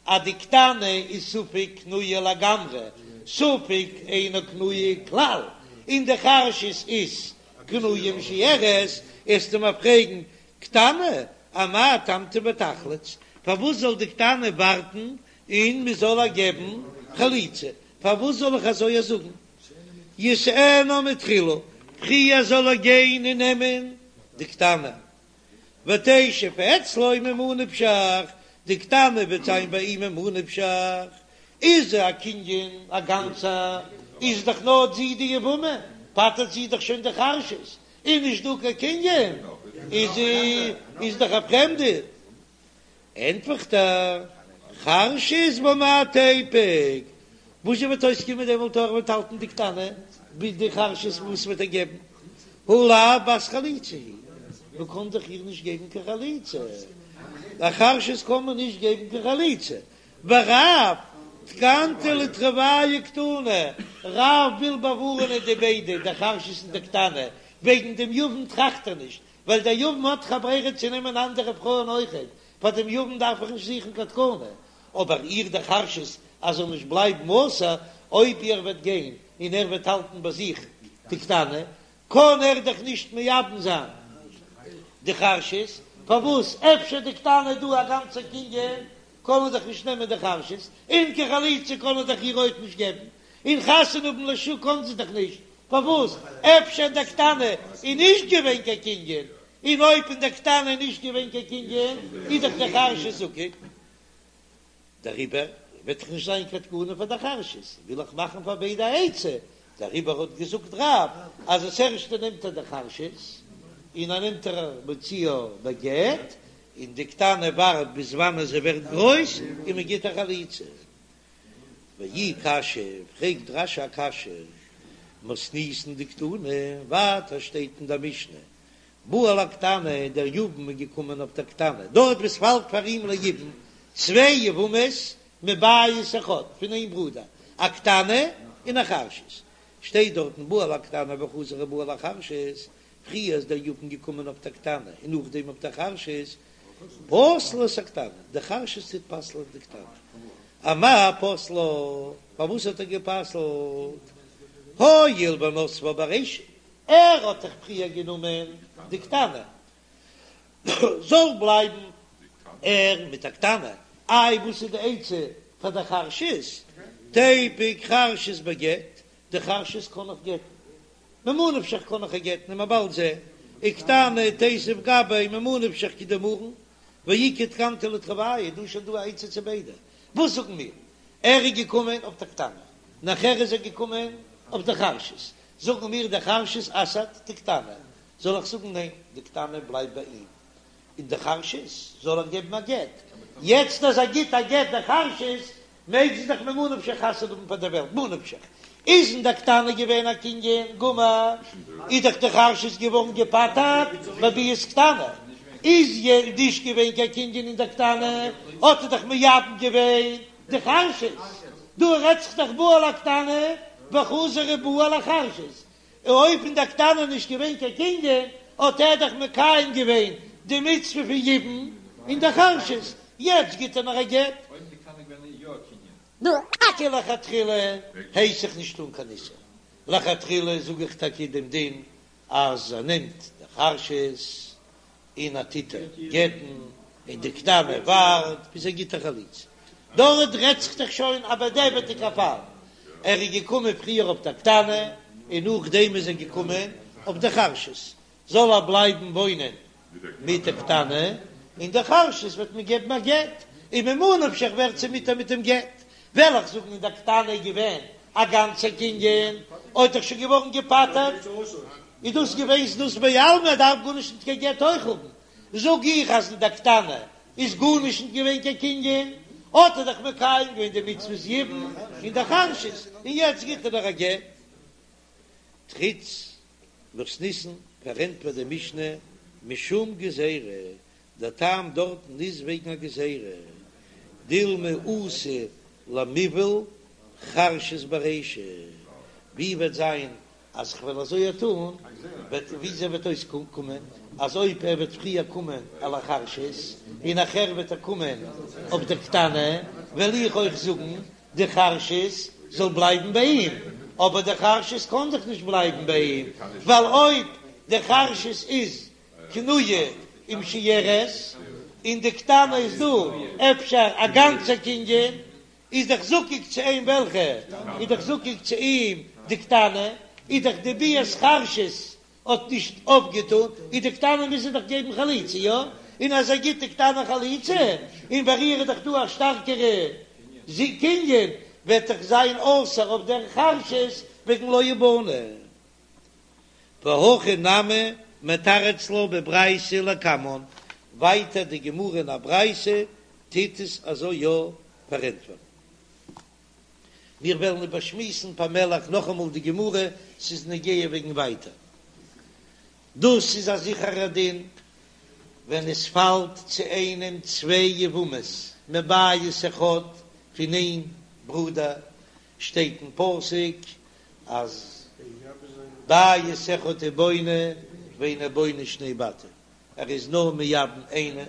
אז די קטנה איז ספק קנויה לגמרי, ספק אינה קנויה כלל, און די חרשת איז קנויה ומשוירת, וועסטו מיר פרעגן, קטנה, אמאי תמתין ותחלוץ, פארוואס זאל די קטנה ווארטן און מען זאל איר געבן חליצה, פארוואס זאל איך אזוי זאגן? ישאנה מתחילה, פריער זאל ער גיין און נעמען די קטנה, ותשב אצלו ממה נפשך, די קטנה וועט זיין ביי אים ממה נפשך, איז זי א קנין א גאנצע, איז דאך נאר זי די יבמה, פטר'ט זי דאך שוין די חרשת, איז נישט דא קיין קנין, איז זי איז דאך א פרעמדע. ענטפערט ער, חרשת במאי תיפוק, וואס זשע וועט אויסקומען דעמאלט אויב ער וועט האלטן די קטנה ביז די חרשת וואס וועט ער געבן, הא לאו בת חליצה היא, מען קען דאך איר נישט געבן קיין חליצה, א חרשת קען מען נישט געבן קיין חליצה, ורב תקנתא לתרוייהו קתני, רב וויל באווארענען די ביידע, די חרשת און די קטנה, וועגן דעם יבם טראכט ער נישט, ווייל דער יבם האט דאך א ברירה צו נעמען אנדערע פרויען אויכעט, פאר דעם יבם דארף איך נישט זוכן קיין תקנה, אבער איר דער חרשת אז זאל נישט בלייבן אסור, אויב ער וועט גיין און ער וועט האלטן ביי זיך די קטנה, קען ער דאך נישט מייבם זיין די חרשת, פארוואס אפשר די קטנה איז דא א גאנצע קנין, קען ער דאך נישט נעמען די חרשת, און קיין חליצה קען ער דאך איר אויך נישט געבן, און חתונה האבן לשוק קען זי דאך נישט, פארוואס? אפשר אין דער קטנה איז נישט געווען קיין קנין, און אויב אין דער קטנה איז נישט געווען קיין קנין, איז דאך די חרשת זקוק. דעריבער וועט דאך נישט זיין קיין תקנה פאר די חרשת, וויל איך מאכן פאר ביידע א עצה, דעריבער האט געזאגט רב אז עס ערשטע נעמט ער די חרשת, און ער נעמט איר מוציאה בגט, און די קטנה ווארט ביז וואנען זי ווערט גרויס און מען גיט איר חליצה. ואי קשיא, פרעגט רש"י א קשיא, מתניתין דקתני, ווייטער שטייט אין דער משנה, בא על הקטנה, דער יבם איז געקומען אויף דער קטנה, דארט וואו ס'פאלט פאר אים ליבום צוויי יבמות מבית אחד, פון איין ברודער, א קטנה און א חרשת, שטייט דארטן בא על הקטנה וחזר ובא על החרשת, פריער איז דער יבם געקומען אויף דער קטנה און נאכדעם אויף דער חרשת, פוסל את הקטנה, די חרשת טוט פסל'ען די קטנה. אמאי פסלה, פארוואס האט ער גע'פסל'ט? הואיל ונסבה ברישא, ער האט דאך פריער גענומען די קטנה, זאל בלייבן ער מיט א קטנה, איי וואס איז די עצה פאר די חרשת? תיפוק חרשת בגט, די חרשת קען איך גט'ן, ממה נפשך קאן איך איר גט'ן וועלן מיר באלד זען, וקטנה תיתיב גביה ממה נפשך כדאמרן, ואיכא תקנתא לתרוייהו, דא איז שוין דא א עצה צו ביידע, וואס זאגן מיר? ער איז געקומען אויף די קטנה, נאכער איז ער געקומען אויף די חרשת, זאגן מיר די חרשת אסר'ט די קטנה, זאל איך זאגן ניין די קטנה בלייבט ביי אים, און די חרשת זאל ער געבן א גט, יעצט אז ער גיט א גט די חרשת מעג זי דאך ממה נפשך חתונה האבן פאר דער וועלט, מה נפשך איז אין דער קטנה געווען א קנין גמור, איז דאך די חרשת געווארן געפטר'ט בביאת קטנה, איז נישט געווען קיין קנין אין דער קטנה, האט ער דאך מייבם געווען די חרשת, דא רעדט זיך דאך בא על הקטנה וחזר ובא על החרשת, און אויב אין דער קטנה נישט געווען קיין קנין, האט ער דאך מקיים געווען די מצוה פון יבום אין דער חרשת, יעצט גיט ער נאר א גט. אויב די קטנה געווען יא א קנין. נו, טאקע לכתחילה הייס איך נישט טון קיין איסור, לכתחילה זאג איך טאקע דעם דין אז ער נעמט די חרשת און ער טוט איר גט'ן, און די קטנה ווארט ביז ער גיט איר חליצה, דארט רעדט זיך דאך שוין א בדיעבד'יגע פאל. ער איז געקומען פריער אויף דער קטנה און נאכדעם איז ער געקומען אויף דער חרשת, זאל ער בלייבן וואוינען מיט דער קטנה, און דער חרשת וועט מען געבן א גט, און ממה נפשך ווערט זי מותר מיט דעם גט, וועל איך זאגן אין דער קטנה איז געווען א גאנצע קנין, האט דאך שוין געווארן געפטר'ט, איז דאס געווען זנות בעלמא, ער דארף גארנישט נישט קיין גט אויך האבן, זאג איך אז אין דער קטנה איז גארנישט נישט געווען קיין קנין, האט ער דאך מקיים געווען די מצוות יבום אין דער חרשת, און יעצט גיט ער נאך א גט. תריץ מתניתין פארענטפערט די משנה משום גזירה, דער טעם דארטן איז וועגן א גזירה, דילמא אתי למיבעל חרשת ברישא, ווי וועט זיין אז כ'וועל אזוי טון, וועט וויאזוי וועט אויסקומען אז אויב ער וועט פריער קומען על החרשת און נאכער וועט ער קומען אויף דער קטנה, וועל איך אויך זאגן די חרשת זאל בלייבן ביי אים, אבער די חרשת קען דאך נישט בלייבן ביי אים, ווייל אויב די חרשת איז קנויה ומשויירת און די קטנה איז דא אפשר א גאנצע קנין, איז דאך זקוק צו אים וועלכע איז דאך זקוק צו אים די קטנה, איז דאך די ביאת חרשת האט נישט אויפגעטון, איז די קטנה מוז ער דאך געבן חליצה, יא? און אז ער גיט די קטנה חליצה, און ביי איר איז דאך דא א שטארקערע קנין, וועט דאך זיין אסור אויף דער חרשת וועגן לא יבנה. והכי נמי מתרץ לה בברייתא לקמן, ווייטער די גמרא אין א ברייתא טוט עס אזוי יא פארענטפערן. מיר וועלן איבערשמועסן פאמעלעך נאכאמאל די גמרא, ס'איז נוגע וועגן ווייטער. דאס איז א זיכערע דין ווען עס פאלט צו איינעם צוויי יבמות מבית אחד פון איין ברודער, שטייט אין פסוק אז בית אחד הוא בונה ואינו בונה שני בתים, ער איז נאר מייבם איינע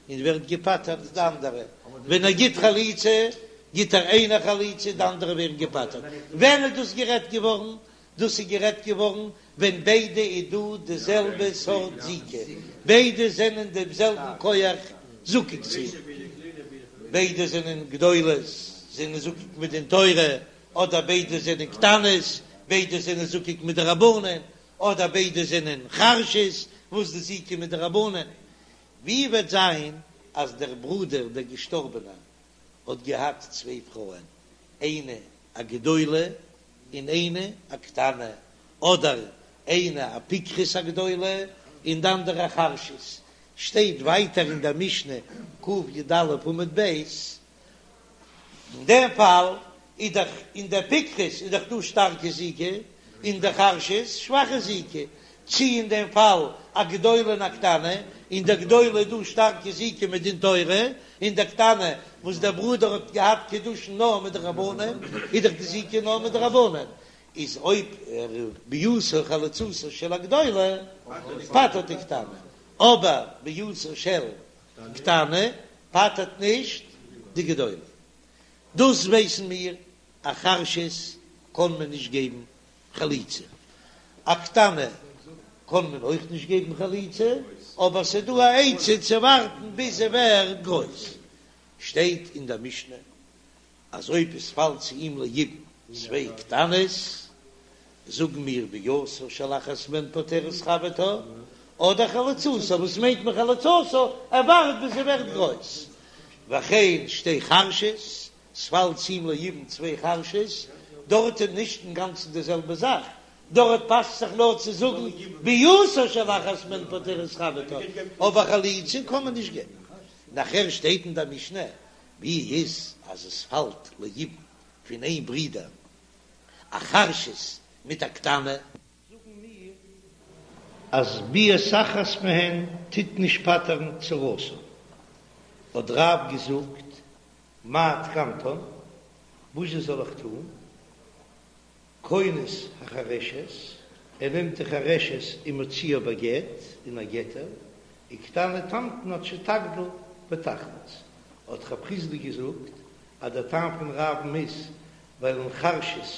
און ווערט געפטר'ט די אנדערע, ווען ער גיט חליצה גיט ער איינע חליצה די אנדערע ווערן געפטר'ט, ווען איז דאס גערעדט געווארן? דאס איז גערעדט געווארן ווען ביידע איז דא די זעלבע סארט זיקה, ביידע זענען דעם זעלבן כח זקוק צו, ביידע זענען גדולות זענען זקוק מדין תורה, אדער ביידע זענען קטנות ביידע זענען זקוק מדרבנן, אדער ביידע זענען חרשות וואס די זיקה מדרבנן. ווי וועט זיין אז דער ברודער דער געשטארבענער האט געהאט צוויי פרויען, איינע א גדולה און איינע א קטנה, אדער איינע א פיקחת א גדולה און די אנדערע א חרשת, שטייט ווייטער אין דער משנה קי"א עמוד ב', אין דעם פאל איז דאך אין דער פיקחת איז דאך דא שטארקע זיקה, אין דער חרשת שוואכע זיקה, צי אין דעם פאל א גדולה און א קטנה, אין דער גדולה איז דא שטארקע זיקה מדין תורה, אין דער קטנה וואס דער ברודער האט געהאט קידושין נאר מדרבנן, איז דאך די זיקה נאר מדרבנן, איז אויב ער ביאתו חליצתה של הגדולה פטר'ט די קטנה, אבער ביאתה של קטנה פטר'ט נישט די גדולה. דאס ווייסן מיר, א חרשת קען מען נישט געבן חליצה, א קטנה קען מען אויך נישט געבן חליצה, אבער ס'איז דא א עצה צו ווארטן ביז זי ווערט גרויס. שטייט אין דער משנה אז אויב עס פאלט צו אים ליבום צוויי קטנות, זאגן מיר ביאתה של אחת מהן פוטרת חברתה, אדער חליצתה, וואס מיינט מען חליצתה? ער ווארט ביז זי ווערט גרויס. וכן שתי חרשות, ס'פאלט צו אים ליבום צוויי חרשות, דארט איז נישט אינגאנצן די זעלבע זאך, דארט פאסט זיך נאר צו זאגן ביאתה של אחת מהן פוטרת חברתה, אבער חליצה קען מען נישט געבן. נאכער שטייט אין דער משנה, ווי איז אז עס פאלט ליבום פון איין ברודער א חרשת מיט א קטנה? זאגן מיר אז ביאת אחת מהן טוט נישט פטר'ן צרתה, האט רב געזאגט מה תקנתן, וואס זאל איך טון, כונס החרשת, ער נעמט די חרשת ומוציאה בגט, און ער גט איר, וקטנה תמתין עד שתגדיל ותחלוץ, האט רב חסדא געזאגט אז דער טעם פון רב'ן איז ווייל אין חרשת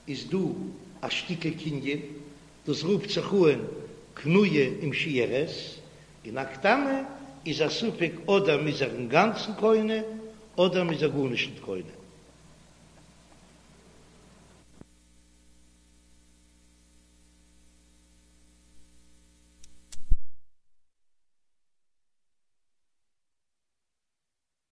איז דא א שטיקל קנין, דאס רופט זיך אן קנויה ומשויירת, און א קטנה איז א ספק אדער מ'איז איר אינגאנצן קונה אדער מ'איז איר גארנישט ניט קונה.